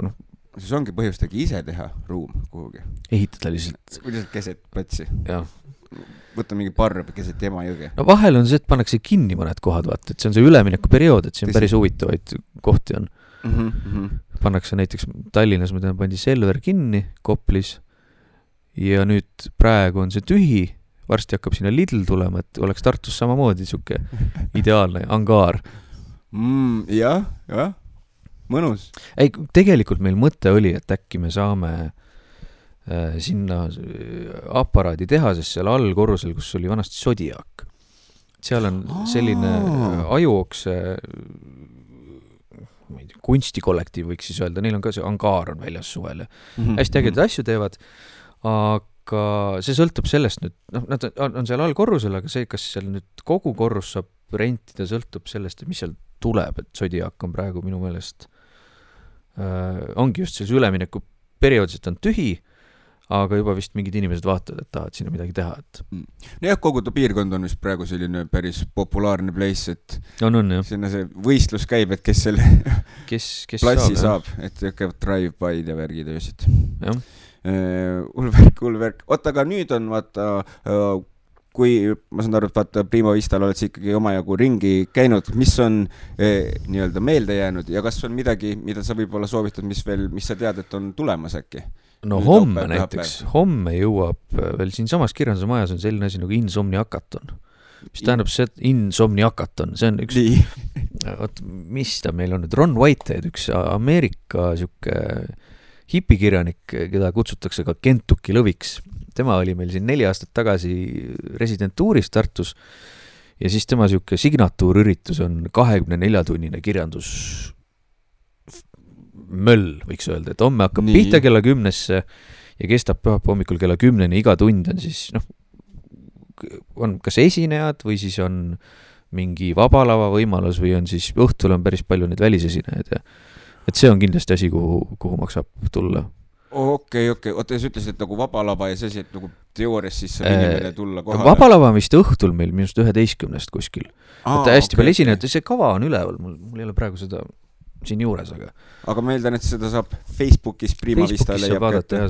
siis ongi põhjustagi ise teha ruum kuhugi. Ehitada lihtsalt. Lihtsalt keset platsi. Jah. Võtta mingi parb keset Emajõge. No vahel on see, et pannakse kinni mõned kohad, vaata, et see on see ülemineku periood, et siin päris huvitavaid kohti on. Pannakse näiteks Tallinnas, ma tean, pandi Selver kinni Koplis ja nüüd praegu on see tühi, varsti hakkab sinna Lidl tulema, et oleks Tartus samamoodi siuke ideaalne angaar. Jah, mõnus. Ei, tegelikult meil mõte oli, et äkki me saame sinna aparaadi teha, sest seal all korrusel, kus oli vanasti Zodiac. Seal on selline ajuokse kunstikollektiiv, võiks siis öelda, neil on ka see angaar on väljas suvel ja hästi ägedad asju teevad, aga see sõltub sellest nüüd, nad on seal all korrusel, aga see, kas seal nüüd kogu korrus saab rentida, sõltub sellest, mis seal tuleb, et Zodiac on praegu minu meelest ongi just selles ülemineku perioodis, et on tühi, aga juba vist mingid inimesed vaatavad, et tahavad sinna midagi teha. Jah, kogu ta piirkond on vist praegu selline päris populaarne place, et sinna see võistlus käib, et kes selle platsi saab, et käivad drive-by'd ja värgid öösid. Ulverk. Oota, aga nüüd on vaata, kui ma saan aru, et vaata Prima Vistal oled sa ikkagi omajagu ringi käinud, mis on nii-öelda meelde jäänud ja kas on midagi, mida sa võib-olla soovitad, mis sa tead, et on tulemas äkki? No homme näiteks, homme jõuab veel siin samas Kirjanduse majas on selline asi nagu Insomniakaton. Mis tähendab see, et Insomniakaton, see on üks, mis ta meil on nüüd, Ron Whitehead, üks Ameerika siuke hipikirjanik, keda kutsutakse ka Kentucky lõviks. Tema oli meil siin 4 aastat tagasi residentuuris Tartus ja siis tema siuke signatuurüritus on 24-tunnine kirjandus möll, võiks öelda, et homme hakkab pihta kella 10-sse ja kestab pühapäeva hommikul kella 10-ni, iga tund on siis, on kas esinejad või siis on mingi vabalava võimalus või on siis õhtul on päris palju neid välisesinejaid ja et see on kindlasti asi, kuhu maksab tulla. Okei. Oota, sa ütlesid, et nagu vabalava ja see asi, et nagu teoorias siis saab inimene tulla kohale. Vabalava vist õhtul meil minust 11 kuskil. Hästi palju esinejad, see kava on üleval, mul ei ole praegu seda siin juures, aga ma eeldan, et seda saab Facebookis Prima Vista leiab vaadata,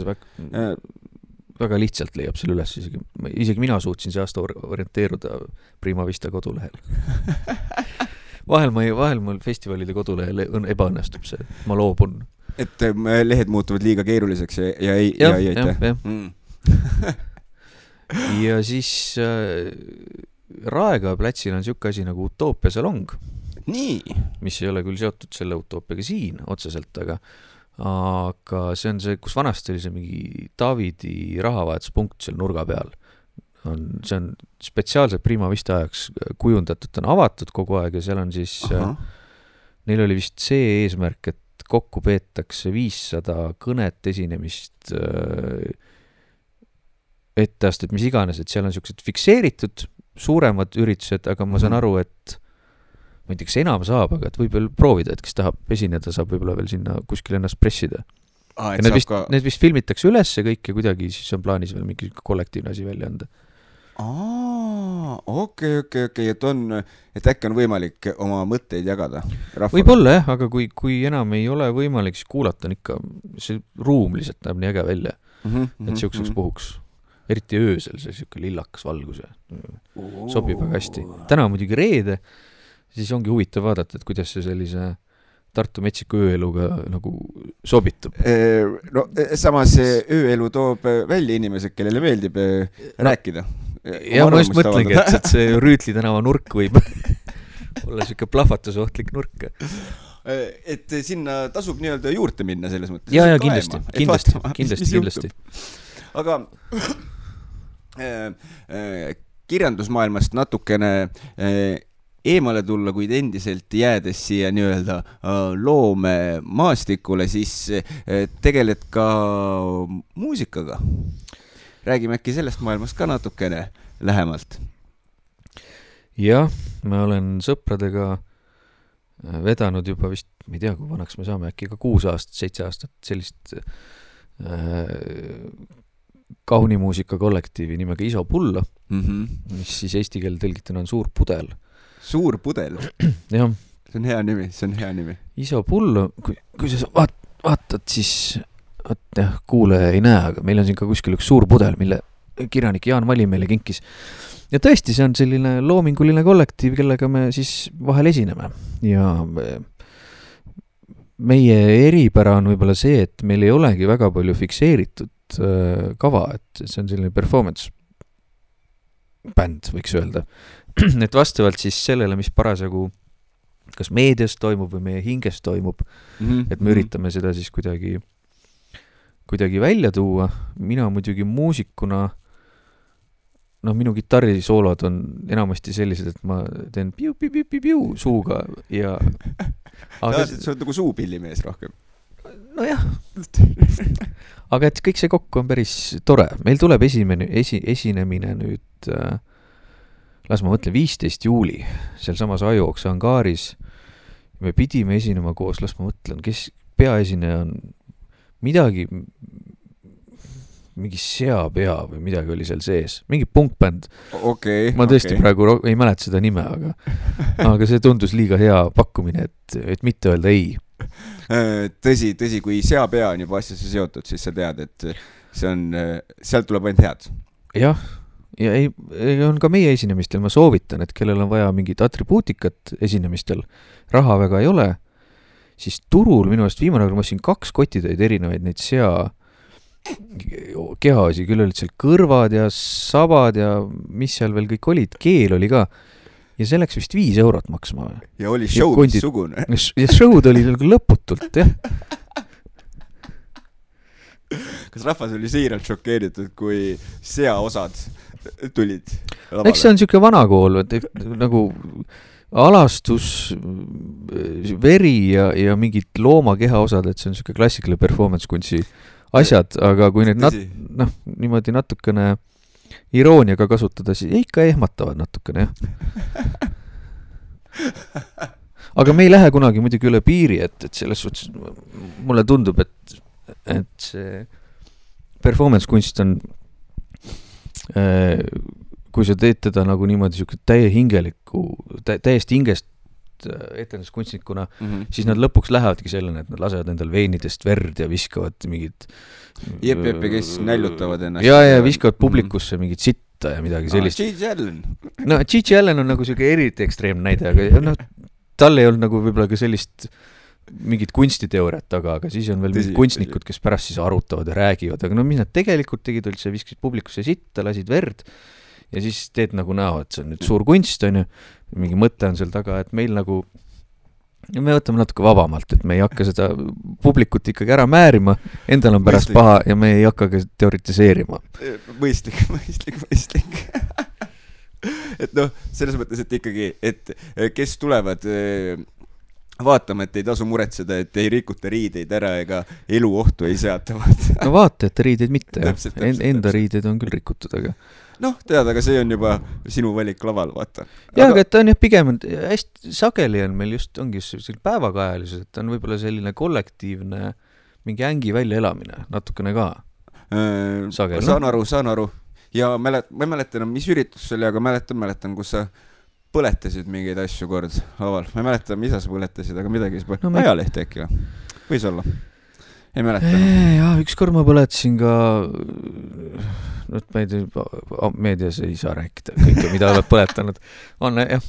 väga lihtsalt leiab selle üles, isegi mina suutsin see aasta orienteeruda Prima Vista kodulehel. Vahel mul festivalide kodulehel ebaõnnestub see, ma loobun. Et lehed muutuvad liiga keeruliseks ja ei aita. Ja siis Raega platsil on siuke asi nagu Utoopia salong. Nii. Mis ei ole küll seotud selle Utoopiaga siin otseselt, aga see on see, kus vanasti oli see mingi Davidi rahavahetuspunkt seal nurga peal. See on spetsiaalselt Prima Vista ajaks kujundatud, ta on avatud kogu aeg ja seal on siis, neil oli vist see eesmärk, et kokku peetakse 500 kõnet esinemist etteastet, mis iganes, et seal on siuksed fikseeritud suuremad üritused, aga ma saan aru, et ma ei tea, kas enam saab, aga et võib veel proovida, et kes tahab esineda, saab võib-olla veel sinna kuskil ennast pressida. Need vist filmitakse üles kõik ja kuidagi siis on plaanis veel mingi kollektiivne asi välja anda. Okei, et äkki on võimalik oma mõtteid jagada rahvale. Võib-olla jah, aga kui enam ei ole võimalik, siis kuulata on ikka, see ruum lihtsalt näeb nii äge välja, et siukseks puhuks. Eriti öösel see siuke lillakas valgus ja sobib väga hästi. Täna muidugi reede, siis ongi huvitav vaadata, et kuidas see sellise Tartu metsiku ööeluga nagu sobitub. No samas ööelu toob välja inimesed, kellele meeldib rääkida. Ja ma just mõtlengi, et see Rüütli tänava nurk võib olla siuke plahvatusohtlik nurk. Et sinna tasub nii-öelda juurde minna selles mõttes. Ja kindlasti. Aga kirjandusmaailmast natukene eemale tulla, kuid endiselt jäädes siia nii-öelda loome maastikule, siis tegeled ka muusikaga. Räägime äkki sellest maailmast ka natukene lähemalt. Jah, ma olen sõpradega vedanud juba vist, ma ei tea, kui vanaks me saame, äkki ka 6 aastat, 7 aastat sellist kaunimuusika kollektiivi nimega Iso Pullo, mis siis eesti keelde tõlgituna on Suur Pudel. Suur Pudel? Jah. See on hea nimi. Iso Pullo, kui sa vaatad, siis kuulaja ei näe, aga meil on siin ka kuskil üks suur pudel, mille kirjanik Jaan Vali meile kinkis. Ja tõesti, see on selline loominguline kollektiiv, kellega me siis vahel esineme. Ja meie eripära on võib-olla see, et meil ei olegi väga palju fikseeritud kava, et see on selline performance bänd, võiks öelda. Et vastavalt siis sellele, mis parasjagu kas meedias toimub või meie hinges toimub, et me üritame seda siis kuidagi välja tuua. Mina muidugi muusikuna, minu kitarrisoolod on enamasti sellised, et ma teen piu suuga ja aga sa oled nagu suupillimees rohkem. Nojah. Aga et kõik see kokku on päris tore. Meil tuleb esinemine nüüd las ma mõtlen 15 juuli seal samas Ajuoksa angaaris. Me pidime esinema koos, las ma mõtlen, kes peaesineja on mingi seapea või midagi oli seal sees. Mingi punkbänd. Ma tõesti praegu ei mäleta seda nime, aga see tundus liiga hea pakkumine, et mitte öelda ei. Tõsi, kui seapea on juba asjasse seotud, siis sa tead, et sealt tuleb ainult head. Jah, ja on ka meie esinemistel, ma soovitan, et kellel on vaja mingit atribuutikat esinemistel, raha väga ei ole, siis turul minu eest viimane, ma siin 2 kotitäid erinevaid neid kehaosi, küll olid seal kõrvad ja sabad ja mis seal veel kõik olid, keel oli ka ja see läks vist 5 eurot maksma. Ja oli show missugune. Ja show'd oli lõputult, jah. Kas rahvas oli siiralt šokeeritud, kui seaosad tulid lavale? Eks see on siuke vanakool, nagu alastus, veri ja mingid looma kehaosad, et see on siuke klassikaline performance kunsti asjad, aga kui need niimoodi natukene irooniaga kasutada, siis ikka ehmatavad natukene, jah. Aga me ei lähe kunagi muidugi üle piiri, et selles suhtes mulle tundub, et see performance kunst on kui sa teed teda nagu niimoodi täiesti hingest etenduskunstnikuna, siis nad lõpuks lähevadki sellena, et nad lasevad endal veinidest verd ja viskavad mingid kes näljutavad ennast. Ja viskavad publikusse mingid sitta ja midagi sellist. Gigi Allen. No Gigi Allen on nagu selline eriti ekstreemne näide, aga tal ei olnud nagu võib-olla ka sellist mingid kunstiteooriat taga, aga siis on veel mingid kunstnikud, kes pärast siis arutavad ja räägivad, aga mis nad tegelikult tegid, olid see viskasid publikusse sitta, lasid verd ja siis teed nagu näo, et see on nüüd suur kunst, on ju, mingi mõte on seal taga, et meil nagu me võtame natuke vabamalt, et me ei hakka seda publikut ikkagi ära määrima, endal on pärast paha ja me ei hakka ka teoritiseerima. Mõistlik. Et selles mõttes, et ikkagi, et kes tulevad vaatama, et ei tasu muretseda, et ei rikuta riideid ära ega elu ohtu ei seatavad. No vaata, et riideid mitte, enda riideid on küll rikutud, aga tead, aga see on juba sinu valik laval, vaata. Aga et on jah pigem, hästi sageli on meil ongi selline päevakajalisus, et on võib-olla selline kollektiivne mingi ängi väljaelamine, natukene ka. Sageli. Saan aru. Ja ma ei mäletan, mis üritus see oli, aga mäletan, kus sa põletasid mingeid asju kord laval. Ma ei mäleta, mida sa põletasid, aga midagi ajalehti äkki võis olla. Ei mäleta. Ja ükskord ma põletasin ka ma ei tea, meedias ei saa rääkida kõike, mida oled põletanud. On, jah.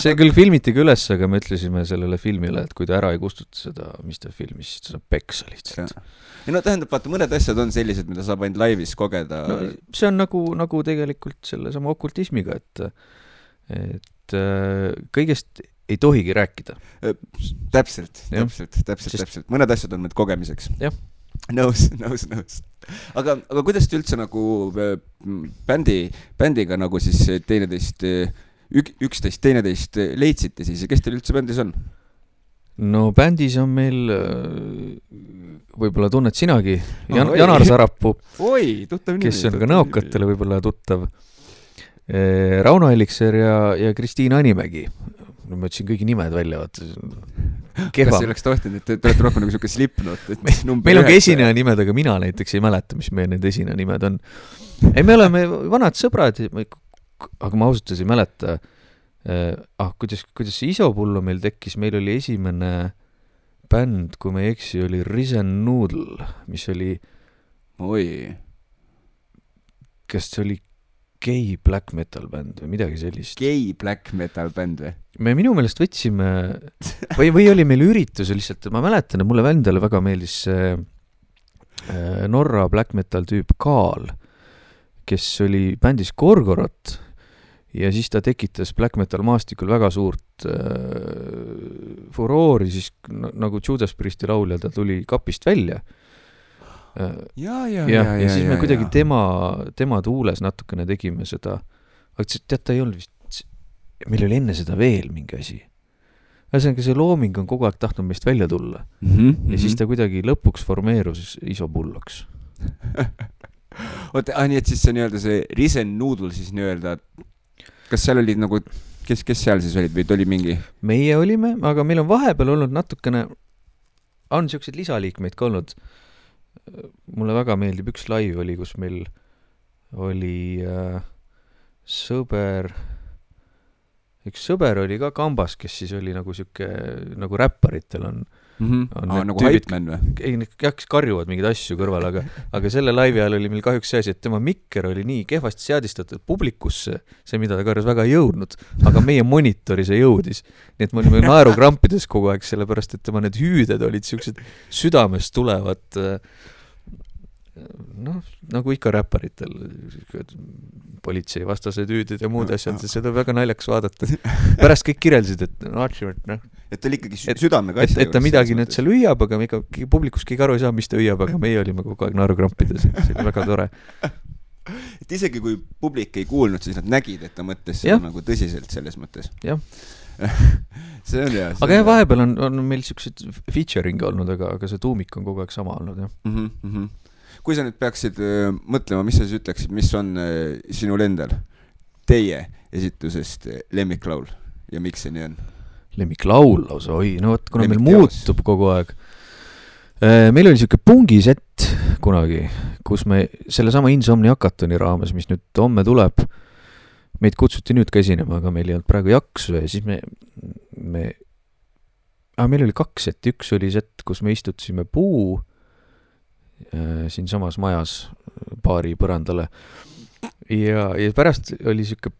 See küll filmiti ka üles, aga me ütlesime sellele filmile, et kui ta ära ei kustuta seda, mis ta filmis, siis ta saab peksa lihtsalt. Ja tähendab, vaata, mõned asjad on sellised, mida saab ainult laivis kogeda. See on nagu tegelikult selle sama okultismiga, et kõigest ei tohigi rääkida. Täpselt. Mõned asjad on need kogemiseks. Jah. Nõus. Aga kuidas te üldse nagu bändiga nagu siis üksteist teineteist leidsite siis ja kes teil üldse bändis on? No bändis on meil võib-olla tunned sinagi Janar Sarapuu, kes on ka näokatele võib-olla tuttav, Rauno Elikser ja Kristiina Animägi. Ma ütlesin kõigi nimed välja, kehvam. Kas oleks tohtinud, et te olete rohkem nagu siuke Slipknot, et meil on ka esineja nimed, aga mina näiteks ei mäleta, mis meie need esineja nimed on. Ei, me oleme vanad sõbrad, aga ma ausalt ei mäleta, kuidas see Isopullo meil tekkis, meil oli esimene bänd, kui ma ei eksi, oli Risen Noodle, mis oli kas see oli gay black metal bänd või midagi sellist. Gay black metal bänd või? Me minu meelest võtsime või oli meil üritus lihtsalt, ma mäletan, et mulle vändale väga meeldis Norra black metal tüüp Kaal, kes oli bändis Gorgorot ja siis ta tekitas black metal maastikul väga suurt furoori, siis nagu Judas Priesti laulja ta tuli kapist välja. Ja siis me kuidagi tema tuules natukene tegime seda, aga tead, ta ei olnud vist, meil oli enne seda veel mingi asi. Ühesõnaga see looming on kogu aeg tahtnud meist välja tulla ja siis ta kuidagi lõpuks formeerus Isopulloks. Oota, nii et siis see nii-öelda see Risen Noodle siis nii-öelda, kas seal olid nagu, kes seal siis olid või oli mingi? Meie olime, aga meil on vahepeal olnud natukene, on siuksed lisaliikmeid ka olnud. Mulle väga meeldib üks live oli, kus meil oli üks sõber oli ka kambas, kes siis oli nagu siuke, nagu räpparitel on nagu Hypeman või? Ei, kes karjuvad mingid asju kõrval, aga selle laivi ajal oli meil kahjuks see asi, et tema mikker oli nii kehvasti seadistatud publikusse, see mida ta karjus väga ei jõudnud, aga meie monitori see jõudis. Nii et me olime naerukrampides kogu aeg, sellepärast et tema need hüüded olid siuksed südamest tulevad nagu ikka räpparitel politsei vastased hüüded ja muud asjad, seda väga naljaks vaadata. Pärast kõik kirjeldasid, et ta oli ikkagi südamega asja. Et ta midagi nüüd seal hüüab, aga publikus keegi aru ei saa, mis ta hüüab, aga meie olime kogu aeg naerukrampides. See oli väga tore. Et isegi kui publik ei kuulnud, siis nad nägid, et ta mõtles seda nagu tõsiselt selles mõttes. Jah. See on hea. Aga vahepeal on meil siuksed featuring olnud, aga see tuumik on kogu aeg sama olnud, jah. Kui sa nüüd peaksid mõtlema, mis sa siis ütleksid, mis on sinul endal teie esitusest lemmiklaul ja miks see nii on? Lemmiklaul lausa, no võt, kuna meil muutub kogu aeg. Meil oli siuke pungisett kunagi, kus me selle sama Insomnia Hackatoni raames, mis nüüd homme tuleb, meid kutsuti nüüd ka esinema, aga meil ei olnud praegu jaksu ja siis meil oli 2 sett, üks oli sett, kus me istutasime puu siin samas majas baari põrandale ja pärast oli siuke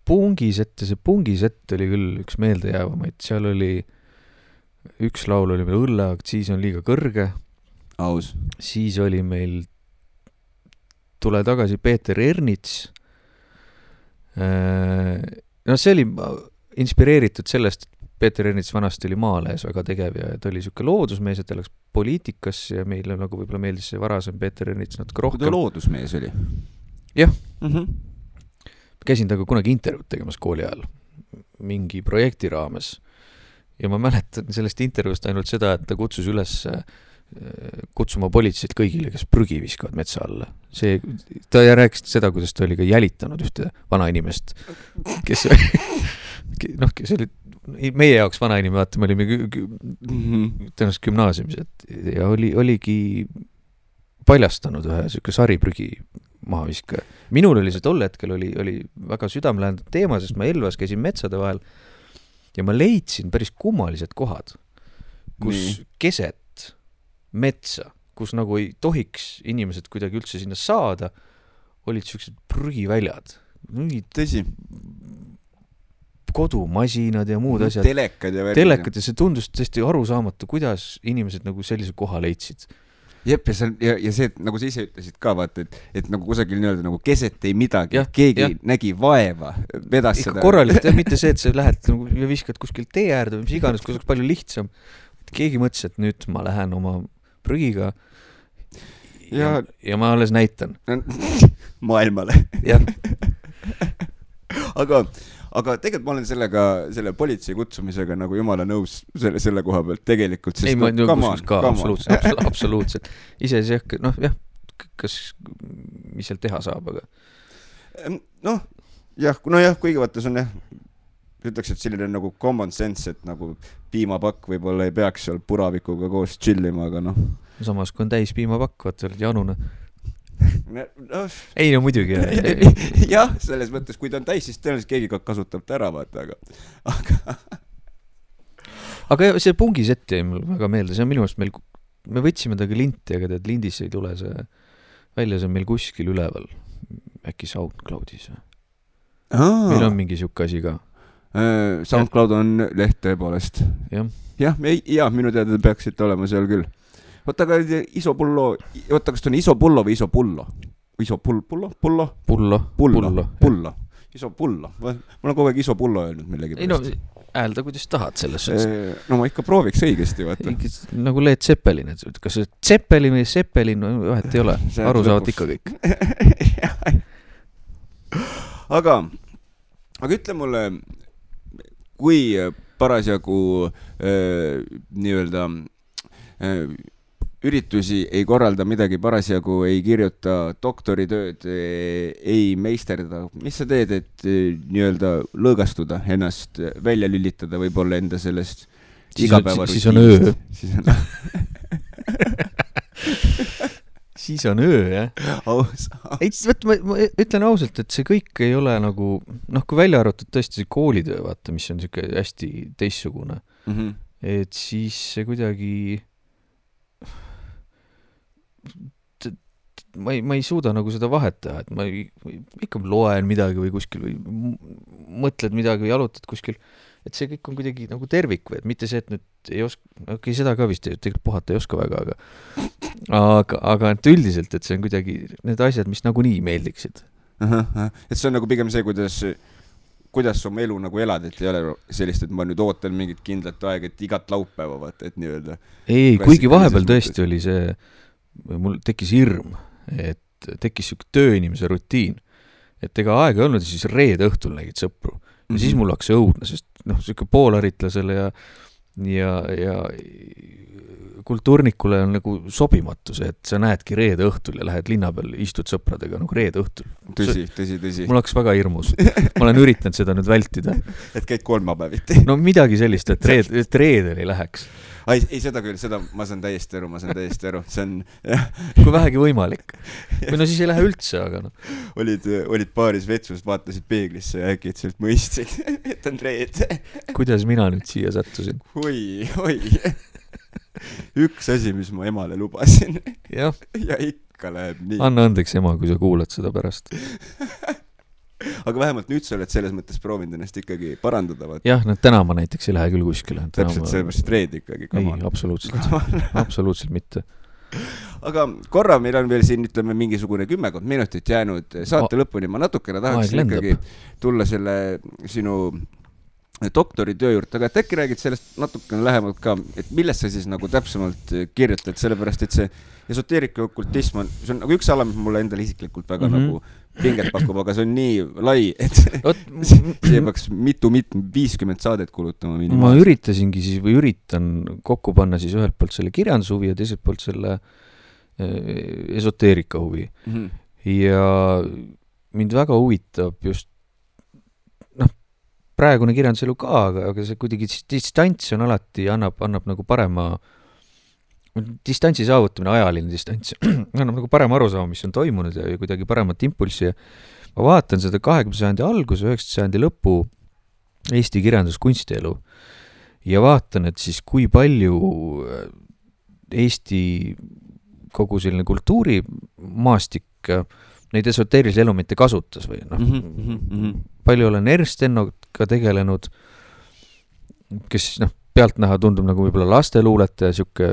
pungisett ja see pungisett oli küll üks meeldejäävamaid, seal oli üks laul oli meil õlleaktsiis on liiga kõrge, aus. Siis oli meil Tule tagasi Peeter Ernits, no see oli inspireeritud sellest, et Peeter Ernits vanasti oli Maalehes väga tegev ja ta oli siuke loodusmees, et ta läks poliitikas ja meile nagu võib-olla meeldis see varasem Peeter Ernits natuke rohkem. Kui ta loodusmees oli? Jah. Käisin taga kunagi intervjuud tegemas kooli ajal mingi projekti raames ja ma mäletan sellest intervjuust ainult seda, et ta kutsus üles kutsuma politseid kõigile, kes prügi viskavad metsa alla. Ta rääkis seda, kuidas ta oli ka jälitanud ühte vanainimest, kes oli meie jaoks vanainime, vaata, me olime tõenäoliselt gümnaasiumis ja oligi paljastanud ühe siuke sariprügi mahaviska. Minul oli see tol hetkel oli väga südamelähendanud teema, sest ma Elvas käisin metsade vahel ja ma leidsin päris kummalised kohad, kus keset metsa, kus nagu ei tohiks inimesed kuidagi üldse sinna saada, olid siuksed prügiväljad. Tõsi. Kodumasinad ja muud asjad. Telekad ja see tundus tõesti arusaamatu, kuidas inimesed nagu sellise koha leidsid. Jep, ja see, nagu sa ise ütlesid ka, vaata, et nagu kusagil nii-öelda nagu keset ei midagi, keegi nägi vaeva, vedas seda. Korralikult, mitte see, et sa lähed nagu, ja viskad kuskil tee äärde või mis iganes, kus oleks palju lihtsam. Keegi mõtles, et nüüd ma lähen oma prügiga ja ma alles näitan. Maailmale. Jah. Aga tegelikult ma olen selle politsei kutsumisega nagu jumala nõus selle koha pealt tegelikult. Ei, ma nõus ka, absoluutselt. Ise see, kas, mis seal teha saab, aga? Kuigi vaata, see on ütleks, et selline nagu common sense, et nagu piimapakk võib-olla ei peaks seal puravikuga koos chillima, aga noh. Samas, kui on täis piimapakk, vaat oled janune. No, ei no muidugi. jah, selles mõttes, kui ta on täis, siis tõenäoliselt keegi kasutab ta ära, vaata, aga see pungisett jäi mul väga meelde, see on minu arust me võtsime taga linti, aga tead, lindis ei tule see välja, see on meil kuskil üleval, äkki SoundCloudis. Meil on mingi siuke asi ka. SoundCloud on leht tõepoolest. Jah, minu teada peaksid olema seal küll. Võtta ka Isopullo, kas ta on Isopullo või Isopullo? Pullo. Isopullo. Ma olen kogu aeg Isopullo öelnud millegi pärast. Ei no, häälda kuidas tahad selles suhtes. No ma ikka prooviks õigesti, vaata. Nagu Led Zeppelin, et kas see Zeppelin või Zeppelin, vahet ei ole. Aru saavad ikka kõik. aga ütle mulle, kui parasjagu nii-öelda üritusi ei korralda midagi, parasjagu ei kirjuta doktoritööd, ei meisterda. Mis sa teed, et nii-öelda lõõgastuda, ennast välja lülitada, võib-olla enda sellest igapäevarutiinist? Siis on öö. Siis on öö, jah. Ma ütlen ausalt, et see kõik ei ole nagu, kui välja arvatud tõesti see koolitöö, vaata, mis on siuke hästi teissugune. Et siis see kuidagi ma ei suuda nagu seda vahet teha, et ma ikka loen midagi või kuskil või mõtled midagi või jalutad kuskil, et see kõik on kuidagi nagu tervik või et mitte see, et nüüd ei oska, seda ka vist tegelikult puhata ei oska väga, aga et üldiselt, et see on kuidagi need asjad, mis nagu nii meeldiksid. Et see on nagu pigem see, kuidas oma elu nagu elad, et ei ole sellist, et ma nüüd ootan mingit kindlat aega, et igat laupäeva vaata, et nii-öelda. Ei, kuigi vahepeal tõesti oli see, mul tekkis hirm, et tekkis siuke tööinimese rutiin, et ega aega ei olnud ja siis reede õhtul nägid sõpru ja siis mul hakkas õudne, sest siuke poolaritlasele ja kultuurnikule on nagu sobimatu see, et sa näedki reede õhtul ja lähed linna peal, istud sõpradega nagu reede õhtul. Tõsi. Mul hakkas väga hirmus. Ma olen üritanud seda nüüd vältida. Et käid kolmapäeviti. No midagi sellist, et reedel ei läheks. Ei, seda küll, ma saan täiesti aru. See on... Kui vähegi võimalik. Või no siis ei lähe üldse, aga no. Olid paaris vetsust, vaatasid peeglisse ja äkki et mõistsid, et on reede. Kuidas mina nüüd siia sattusin? Oi. Üks asi, mis ma emale lubasin. Ja ikka läheb nii. Anna andeks ema, kui sa kuulad seda pärast. Aga vähemalt nüüd sa oled selles mõttes proovinud ennast ikkagi parandada. Vaata. Jah, täna ma näiteks ei lähe küll kuskile. Täpselt sellepärast reed ikkagi. Ei, absoluutselt mitte. Aga korra meil on veel siin, ütleme, mingisugune 10 minutit jäänud saate lõpuni. Ma natukene tahaksin ikkagi tulla selle sinu doktoritöö juurde, aga et äkki räägid sellest natukene lähemalt ka, et millest sa siis nagu täpsemalt kirjutad, sellepärast, et see esoteerika okultism see on nagu üks ala, mis mulle endale isiklikult väga nagu pinget pakub, aga see on nii lai, et see peaks 50 saadet kulutama minimaalselt. Ma üritasingi siis või üritan kokku panna siis ühelt poolt selle kirjandushuvi ja teiselt poolt selle esoteerika huvi. Ja mind väga huvitab just praegune kirjanduselu ka, aga see kuidagi distants on alati, annab nagu parema distantsi saavutamine, ajaline distants, annab nagu parema arusaama, mis on toimunud ja kuidagi paremat impulssi. Ma vaatan seda 20. sajandi algus, 19. sajandi lõpu Eesti kirjanduskunstielu ja vaatan, et siis kui palju Eesti kogu selline kultuurimaastik neid esoteerilisi elemente kasutas või palju olen Ernst-Ennoga tegelenud, kes pealtnäha tundub nagu võib-olla lasteluuletaja, siuke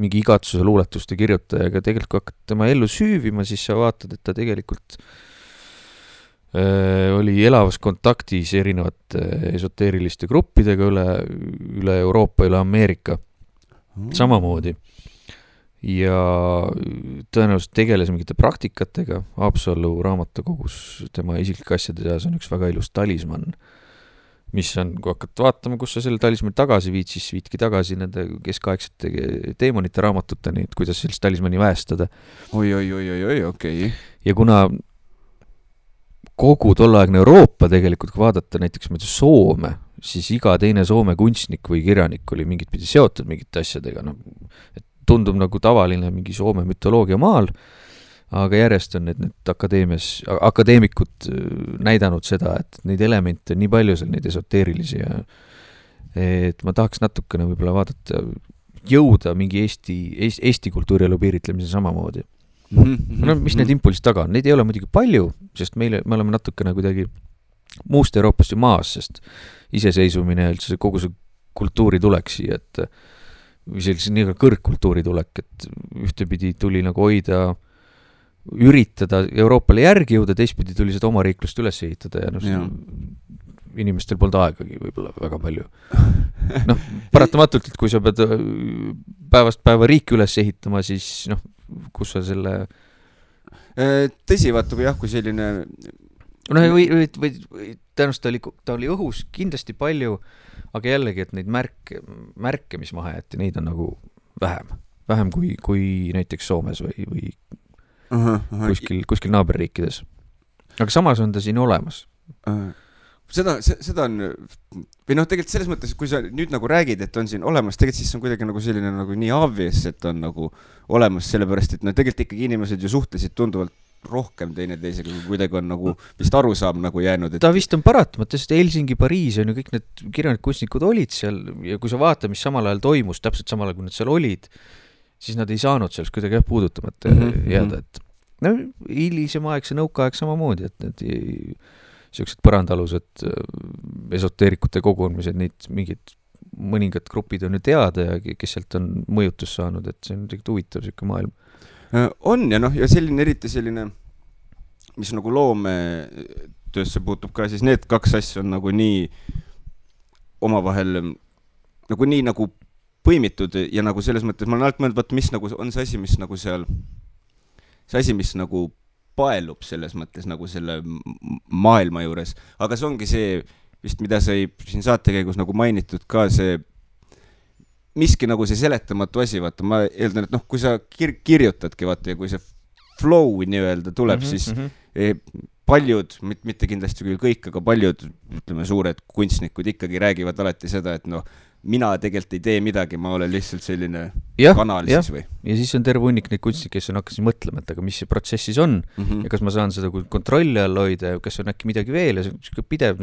mingi igatsuse luuletuste kirjutaja, aga tegelikult kui hakkad tema ellu süüvima, siis sa vaatad, et ta tegelikult oli elavas kontaktis erinevate esoteeriliste gruppidega üle Euroopa, üle Ameerika samamoodi. Ja tõenäoliselt tegeles mingite praktikatega. Haapsalu raamatukogus tema isiklike asjade seas on üks väga ilus talisman, mis on, kui hakkad vaatama, kus sa selle talismani tagasi viid, siis viidki tagasi nende keskaegsete teemonite raamatuteni, et kuidas sellist talismani väestada. Oi, okei. Ja kuna kogu tolleaegne Euroopa tegelikult, kui vaadata näiteks Soome, siis iga teine Soome kunstnik või kirjanik oli mingit pidi seotud mingite asjadega, no, et tundub nagu tavaline mingi Soome mütoloogia maal, aga järjest on need akadeemikud näidanud seda, et neid elemente on nii palju seal, neid esoteerilisi ja et ma tahaks natukene võib-olla vaadata, jõuda mingi Eesti kultuurielu piiritlemise samamoodi. No, mis need impulsid taga on? Neid ei ole muidugi palju, sest me oleme natukene kuidagi muust Euroopast ju maas, sest iseseisvumine ja üldse kogu see kultuuri tulek siia, et või sellise nii kõrgkultuuri tulek, et ühtepidi tuli nagu hoida, üritada Euroopale järgi jõuda, teistpidi tuli seda oma riiklust üles ehitada ja inimestel polnud aegagi võib-olla väga palju. Paratamatult, et kui sa pead päevast päeva riiki üles ehitama, siis kus sa selle... Tõsi, vaata, kui selline... või tõenäoliselt ta oli õhus kindlasti palju, aga jällegi, et neid märke, mis maha jäeti, neid on nagu vähem kui näiteks Soomes või kuskil naaberriikides. Aga samas on ta siin olemas. Seda on, või tegelikult selles mõttes, kui sa nüüd nagu räägid, et on siin olemas, tegelikult siis on kuidagi nagu selline nagu nii obvious, et on nagu olemas sellepärast, et tegelikult ikkagi inimesed ju suhtlesid tunduvalt rohkem teineteisega, kui kuidagi on nagu vist arusaam nagu jäänud. Ta vist on paratamata, sest Helsingi, Pariis on ju kõik need kirjanik-kunstnikud olid seal ja kui sa vaata, mis samal ajal toimus, täpselt samal ajal, kui nad seal olid, siis nad ei saanud sellest kuidagi puudutamata jääda, et hilisem aeg, see nõukaaeg samamoodi, et need sellised põrandalused esoteerikute kogunemised, neid mingid mõningad grupid on ju teada ja kes sealt on mõjutus saanud, et see on tegelikult huvitav selline maailm. On ja ja selline eriti selline, mis nagu loometöösse puutub ka, siis need kaks asja on nagu nii omavahel nagu nii nagu põimitud ja nagu selles mõttes, ma olen alt mõelnud, mis nagu on see asi, mis nagu seal, see asi, mis nagu paelub selles mõttes nagu selle maailma juures, aga see ongi see vist, mida sai siin saate käigus nagu mainitud ka see miski nagu see seletamatu asi, vaata, ma eeldan, et kui sa kirjutadki, vaata, ja kui see flow nii-öelda tuleb, siis paljud, mitte kindlasti küll kõik, aga paljud, ütleme, suured kunstnikud ikkagi räägivad alati seda, et mina tegelikult ei tee midagi, ma olen lihtsalt selline kanal siis või. Ja siis on terve hunnik neid kunstnikke, kes on hakkasid mõtlema, et aga mis see protsessis on ja kas ma saan seda kontrolli all hoida ja kas on äkki midagi veel ja see on pidev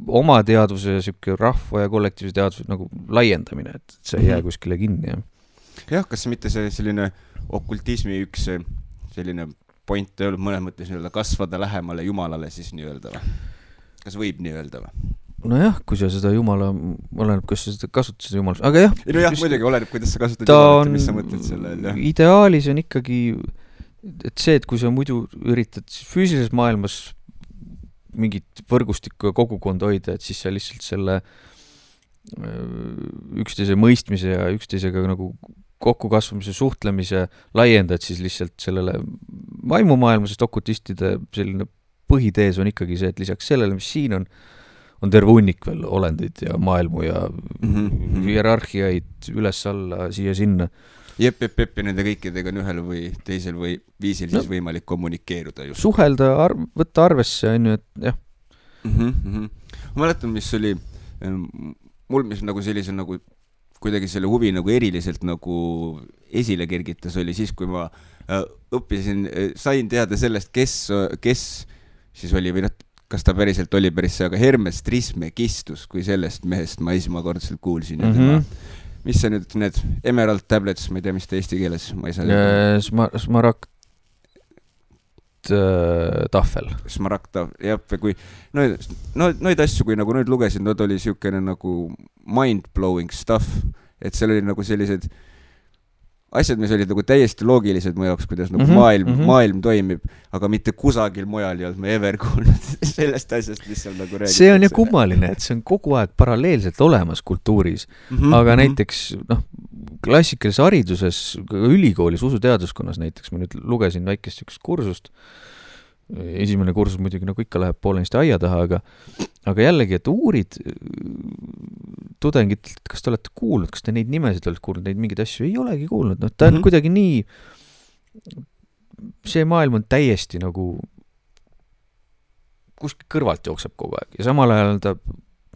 oma teadvuse ja siuke rahva ja kollektiivse teadvuse nagu laiendamine, et see ei jää kuskile kinni. Jah, kas mitte see selline okultismi üks selline point ei olnud mõnes mõttes nii-öelda kasvada lähemale Jumalale siis nii-öelda või? Kas võib nii öelda või? Nojah, kui sa seda Jumala, oleneb, kas sa seda kasutad seda Jumalast, aga jah. Nojah, muidugi oleneb, kuidas sa kasutad Jumalat ja mis sa mõtled selle. Ideaalis on ikkagi, et see, et kui sa muidu üritad füüsilises maailmas mingit võrgustikku ja kogukonda hoida, et siis sa lihtsalt selle üksteise mõistmise ja üksteisega nagu kokkukasvamise, suhtlemise laiendad siis lihtsalt sellele vaimumaailma, sest okultistide selline põhitees on ikkagi see, et lisaks sellele, mis siin on terve hunnik veel olendeid ja maailmu ja hierarhiaid üles-alla, siia-sinna. Jep, ja nende kõikidega on ühel või teisel või viisil siis võimalik kommunikeeruda. Just. Suhelda, võtta arvesse, on ju, et jah. Ma mäletan, mis oli mul, mis nagu sellise nagu kuidagi selle huvi nagu eriliselt nagu esile kergitas oli siis, kui ma õppisin, sain teada sellest, kes siis oli või kas ta päriselt oli päris see, aga Hermes Trismegistus, kui sellest mehest ma esmakordselt kuulsin ja tema mis see nüüd, need Emerald Tablets, ma ei tea, mis ta eesti keeles, ma ei saa Smaragd tahvel. Smaragd tahvel, jah, kui neid asju, kui nagu nüüd lugesin, nad oli siukene nagu mind-blowing stuff, et seal oli nagu sellised asjad, mis olid nagu täiesti loogilised mu jaoks, kuidas nagu maailm toimib, aga mitte kusagil mujal ei olnud me ever kuulnud sellest asjast, mis seal nagu räägitakse. See on ju kummaline, et see on kogu aeg paralleelselt olemas kultuuris, aga näiteks klassikalises hariduses, ülikoolis, usuteaduskonnas näiteks, ma nüüd lugesin väikest üks kursust, esimene kursus muidugi nagu ikka läheb poolenisti aia taha, aga jällegi, et uurid tudengid, kas te olete kuulnud, kas te neid nimesid olete kuulnud, neid mingeid asju ei olegi kuulnud, ta on kuidagi nii, see maailm on täiesti nagu kuskil kõrvalt jookseb kogu aeg ja samal ajal ta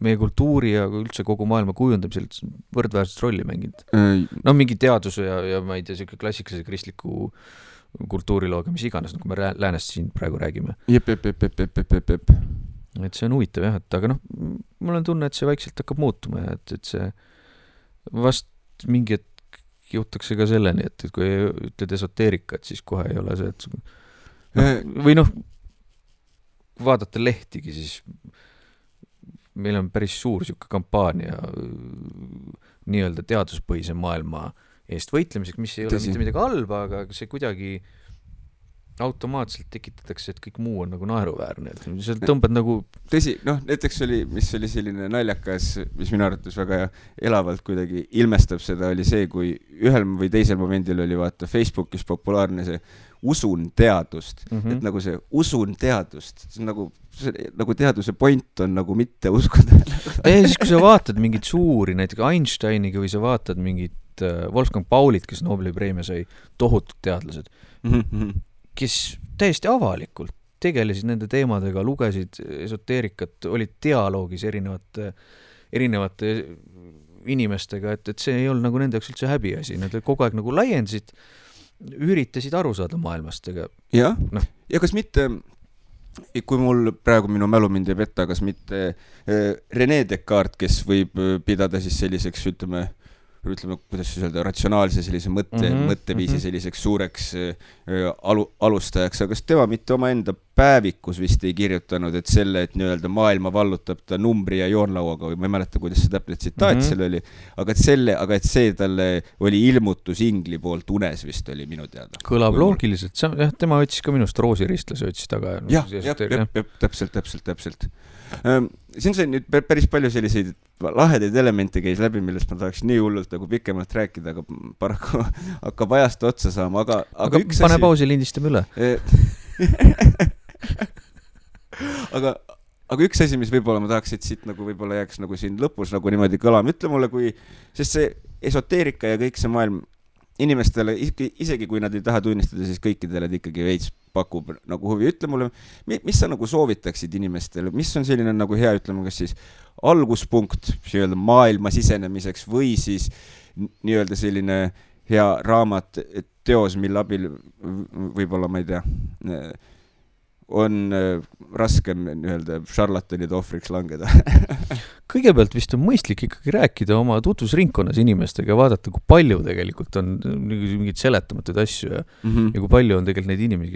meie kultuuri ja üldse kogu maailma kujundamisel võrdväärset rolli mänginud. No mingi teaduse ja ma ei tea, selline klassikalise kristliku kultuurilooga, mis iganes, nagu me läänest siin praegu räägime. Jep. Et see on huvitav jah, et aga mul on tunne, et see vaikselt hakkab muutuma ja et see vast mingi hetk jõutakse ka selleni, et kui ütled esoteerikat, siis kohe ei ole see, et või vaadata lehtigi, siis meil on päris suur siuke kampaania nii-öelda teaduspõhise maailma eest võitlemiseks, mis ei ole mitte midagi halba, aga see kuidagi automaatselt tekitatakse, et kõik muu on nagu naeruväärne, et sa tõmbad nagu tõsi, näiteks mis oli selline naljakas, mis minu arvates väga elavalt kuidagi ilmestab seda, oli see, kui ühel või teisel momendil oli vaata Facebookis populaarne see usun teadust, et nagu see usun teadust, see on nagu teaduse point on nagu mitte uskuda. Siis kui sa vaatad mingit suuri, näiteks Einsteiniga või sa vaatad mingit Wolfgang Paulit, kes Nobeli preemia sai, tohutud teadlased, kes täiesti avalikult tegelesid nende teemadega, lugesid esoteerikat, olid dialoogis erinevate inimestega, et see ei olnud nagu nende jaoks üldse häbiasi, nad kogu aeg nagu laiendasid, üritasid aru saada maailmast. Ja kas mitte, kui mul praegu minu mälu mind ei petta, kas mitte René Descartes, kes võib pidada siis selliseks, ütleme, kuidas siis öelda, ratsionaalse sellise mõtteviisi selliseks suureks alustajaks, aga kas tema mitte oma enda päevikus vist ei kirjutanud, et selle, et nii-öelda maailma vallutab ta numbri ja joonlauaga, või ma ei mäleta, kuidas see täpselt tsitaat seal oli, aga et see talle oli ilmutus ingli poolt unes vist oli minu teada. Kõlab loogiliselt, tema võttis ka minust roosiristlas, võttis taga. Täpselt. Siin sai nüüd päris palju selliseid lahedaid elemente käis läbi, millest ma tahaks nii hullult nagu pikemalt rääkida, aga paraku hakkab ajast otsa saama, aga üks pane pausi, lindistame üle. aga üks asi, mis võib-olla ma tahaks, et siit nagu võib-olla jääks nagu siin lõpus nagu niimoodi kõlama, ütle mulle, sest see esoteerika ja kõik see maailm inimestele, isegi kui nad ei taha tunnistada, siis kõikidele ikkagi veits pakub nagu huvi. Ütle mulle, mis sa nagu soovitaksid inimestele, mis on selline nagu hea, ütleme, kas siis alguspunkt maailma sisenemiseks või siis nii-öelda selline hea raamat, teos, mille abil võib-olla, ma ei tea, on raskem nii-öelda šarlatanide ohvriks langeda. Kõigepealt vist on mõistlik ikkagi rääkida oma tutvusringkonnas inimestega ja vaadata, kui palju tegelikult on mingid seletamatuid asju ja kui palju on tegelikult neid inimesi,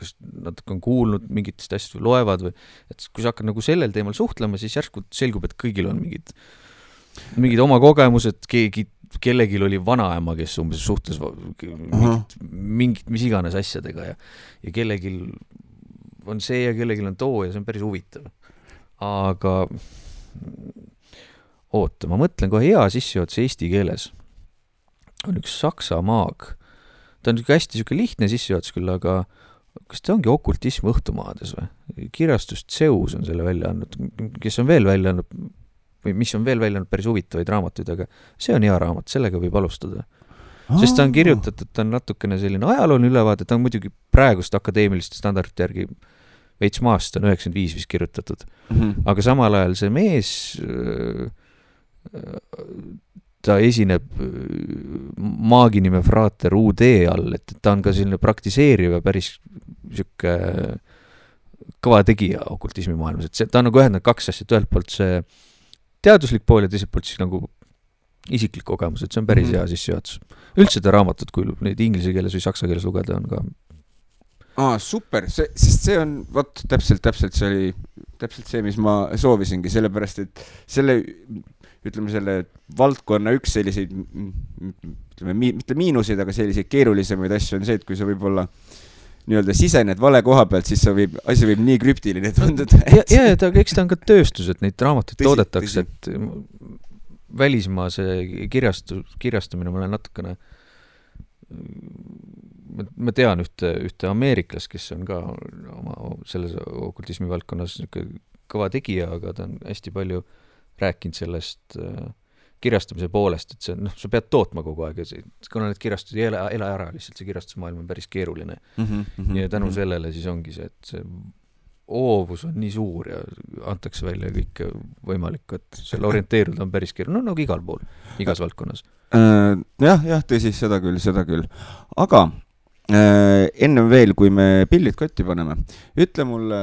kes natuke on kuulnud mingitest asjast või loevad või, et kui sa hakkad nagu sellel teemal suhtlema, siis järsku selgub, et kõigil on mingid oma kogemused, kellelgi oli vanaema, kes umbes suhtles mingit mis iganes asjadega ja kellelgi on see ja kellelgi on too ja see on päris huvitav. Aga oota, ma mõtlen kohe hea sissejuhatus eesti keeles. On üks saksa maag. Ta on hästi lihtne sissejuhatus küll, aga kas ta ongi okultism õhtumaades või? Kirjastus Zeus on selle välja andnud, kes on veel välja andnud või mis on veel välja andnud päris huvitavaid raamatuid, aga see on hea raamat, sellega võib alustada. Sest ta on kirjutatud, ta on natukene selline ajalooline ülevaade, ta on muidugi praegust akadeemiliste standardite järgi veits maast, on 95 vist kirjutatud. Aga samal ajal see mees, ta esineb maagi nime Frater UD all, et ta on ka selline praktiseeriv ja päris siuke kõva tegija okultismi maailmas. Et ta on nagu ühendanud kaks asja, ühelt poolt see teaduslik pool ja teiselt poolt siis nagu isiklik kogemus, et see on päris hea sissejuhatus. Üldse ta raamatut, kui neid inglise keeles või saksa keeles lugeda, on ka super, sest see on täpselt see oli täpselt see, mis ma soovisingi, sellepärast, et selle valdkonna üks selliseid, mitte miinuseid, aga selliseid keerulisemaid asju on see, et kui sa võib-olla nii-öelda sisened vale koha pealt, siis asi võib nii krüptiline tunduda. Aga eks ta on ka tööstus, et neid raamatuid toodetakse, et välismaa see kirjastamine, ma olen natukene ma tean ühte ameeriklast, kes on ka oma selles okultismi valdkonnas kõva tegija, aga ta on hästi palju rääkinud sellest kirjastamise poolest, et sa pead tootma kogu aeg ja kuna need kirjastused ei ela ära, lihtsalt see kirjastusmaailm on päris keeruline. Ja tänu sellele siis ongi see, et see oovus on nii suur ja antakse välja kõik võimalik, et seal orienteeruda on päris keeruline, no nagu igal pool, igas valdkonnas. Jah, tõsi, seda küll. Aga ennem veel, kui me pillid kotti paneme, ütle mulle,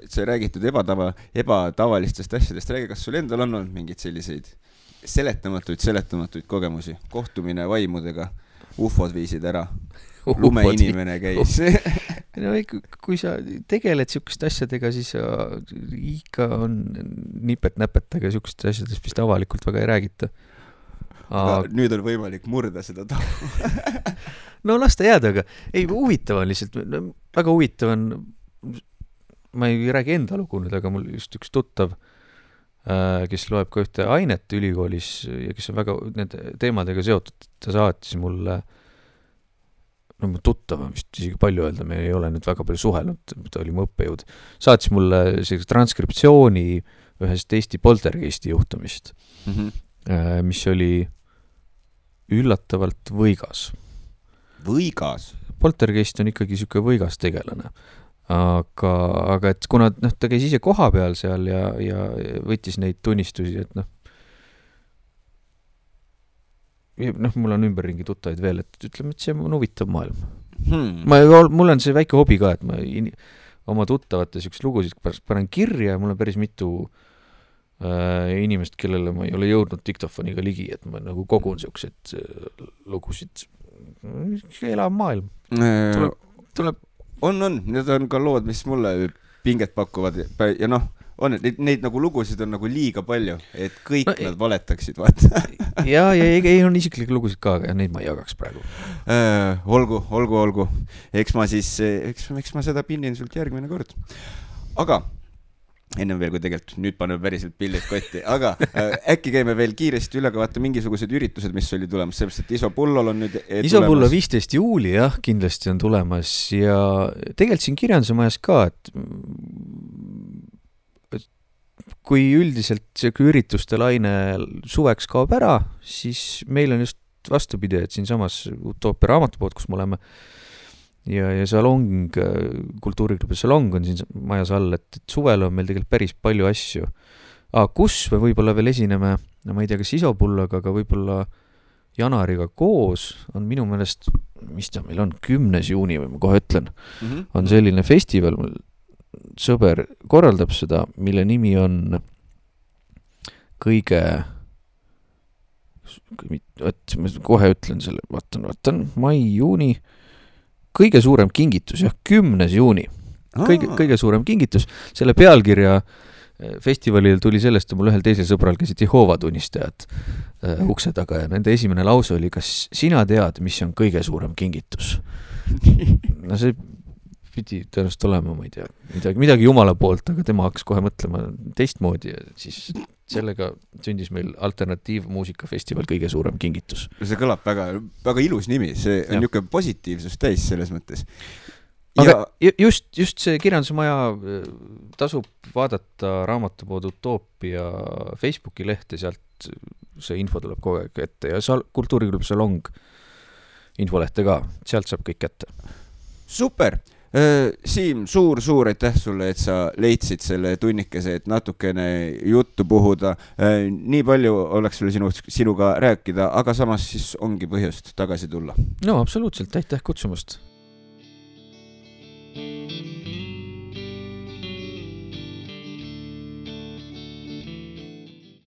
sa räägitud ebatavalistest asjadest, räägi, kas sul endal on olnud mingid selliseid seletamatuid kogemusi, kohtumine vaimudega, ufod viisid ära, lumeinimene käis. No, kui sa tegeled sihukest asjadega, siis ikka on nipet-näpet, aga sihukest asjadest vist avalikult väga ei räägita. Aga nüüd on võimalik murda seda tahu. No las ta jääda, aga ei, huvitav on lihtsalt, väga huvitav on, ma ei räägi enda lugu nüüd, aga mul just üks tuttav, kes loeb ka ühte ainet ülikoolis ja kes on väga nende teemadega seotud, ta saatis mulle, no mu tuttav on vist isegi palju öelda, me ei ole nüüd väga palju suhelnud, ta oli mu õppejõud, saatis mulle sellise transkriptsiooni ühest Eesti poltergeisti juhtumist, mis oli üllatavalt võigas. Võigas? Poltergeist on ikkagi siuke võigas tegelane. Aga et kuna ta käis ise koha peal seal ja võttis neid tunnistusi, et mul on ümberringi tuttaid veel, et ütleme, et see on huvitav maailm. Mul on see väike hobi ka, et ma oma tuttavate siukest lugusid panen kirja ja mul on päris mitu inimest, kellele ma ei ole jõudnud diktofoniga ligi, et ma nagu kogun siuksed lugusid. Elav maailm. Tuleb. On. Need on ka lood, mis mulle pinget pakuvad ja neid nagu lugusid on nagu liiga palju, et kõik nad valetaksid, vaata. ja ei on isiklikke lugusid ka, aga neid ma ei jagaks praegu. Olgu. Eks ma seda pinnin sult järgmine kord. Aga ennem veel, kui tegelikult nüüd paneme päriselt pillid kotti, aga äkki käime veel kiiresti üle, aga vaata mingisugused üritused, mis oli tulemas, sellepärast, et Isopullol on nüüd Isopullo 15. juuli, jah, kindlasti on tulemas ja tegelikult siin Kirjanduse majas ka, et kui üldiselt see ürituste laine suveks kaob ära, siis meil on just vastupidi, et siin samas Utoopia raamatupood, kus me oleme, ja salong, kultuuriklubi salong on siin majas all, et suvel on meil tegelikult päris palju asju. Kus me võib-olla veel esineme, no ma ei tea, kas Isopulloga, aga võib-olla Janariga koos on minu meelest, mis ta meil on, 10. juuni või ma kohe ütlen, on selline festival, sõber korraldab seda, mille nimi on kõige, ma kohe ütlen selle, vaatan, mai, juuni, kõige suurem kingitus, jah, 10. juuni. Kõige suurem kingitus. Selle pealkirja festivalil tuli sellest, et mul ühel teisel sõbral käisid Jehoova tunnistajad ukse taga ja nende esimene lause oli, kas sina tead, mis on kõige suurem kingitus? No see pidi tõenäoliselt olema, ma ei tea, midagi Jumala poolt, aga tema hakkas kohe mõtlema teistmoodi ja siis sellega sündis meil alternatiivmuusikafestival kõige suurem kingitus. See kõlab väga, väga ilus nimi, see on niisugune positiivsus täis selles mõttes. Aga just see Kirjanduse maja tasub vaadata raamatupood Utoopia Facebooki lehte, sealt see info tuleb kogu aeg ette ja kultuuriklubi salong infolehte ka, sealt saab kõik kätte. Super! Siim, suur aitäh sulle, et sa leidsid selle tunnikese, et natukene juttu puhuda. Nii palju oleks sulle sinuga rääkida, aga samas siis ongi põhjust tagasi tulla. No absoluutselt, aitäh kutsumast.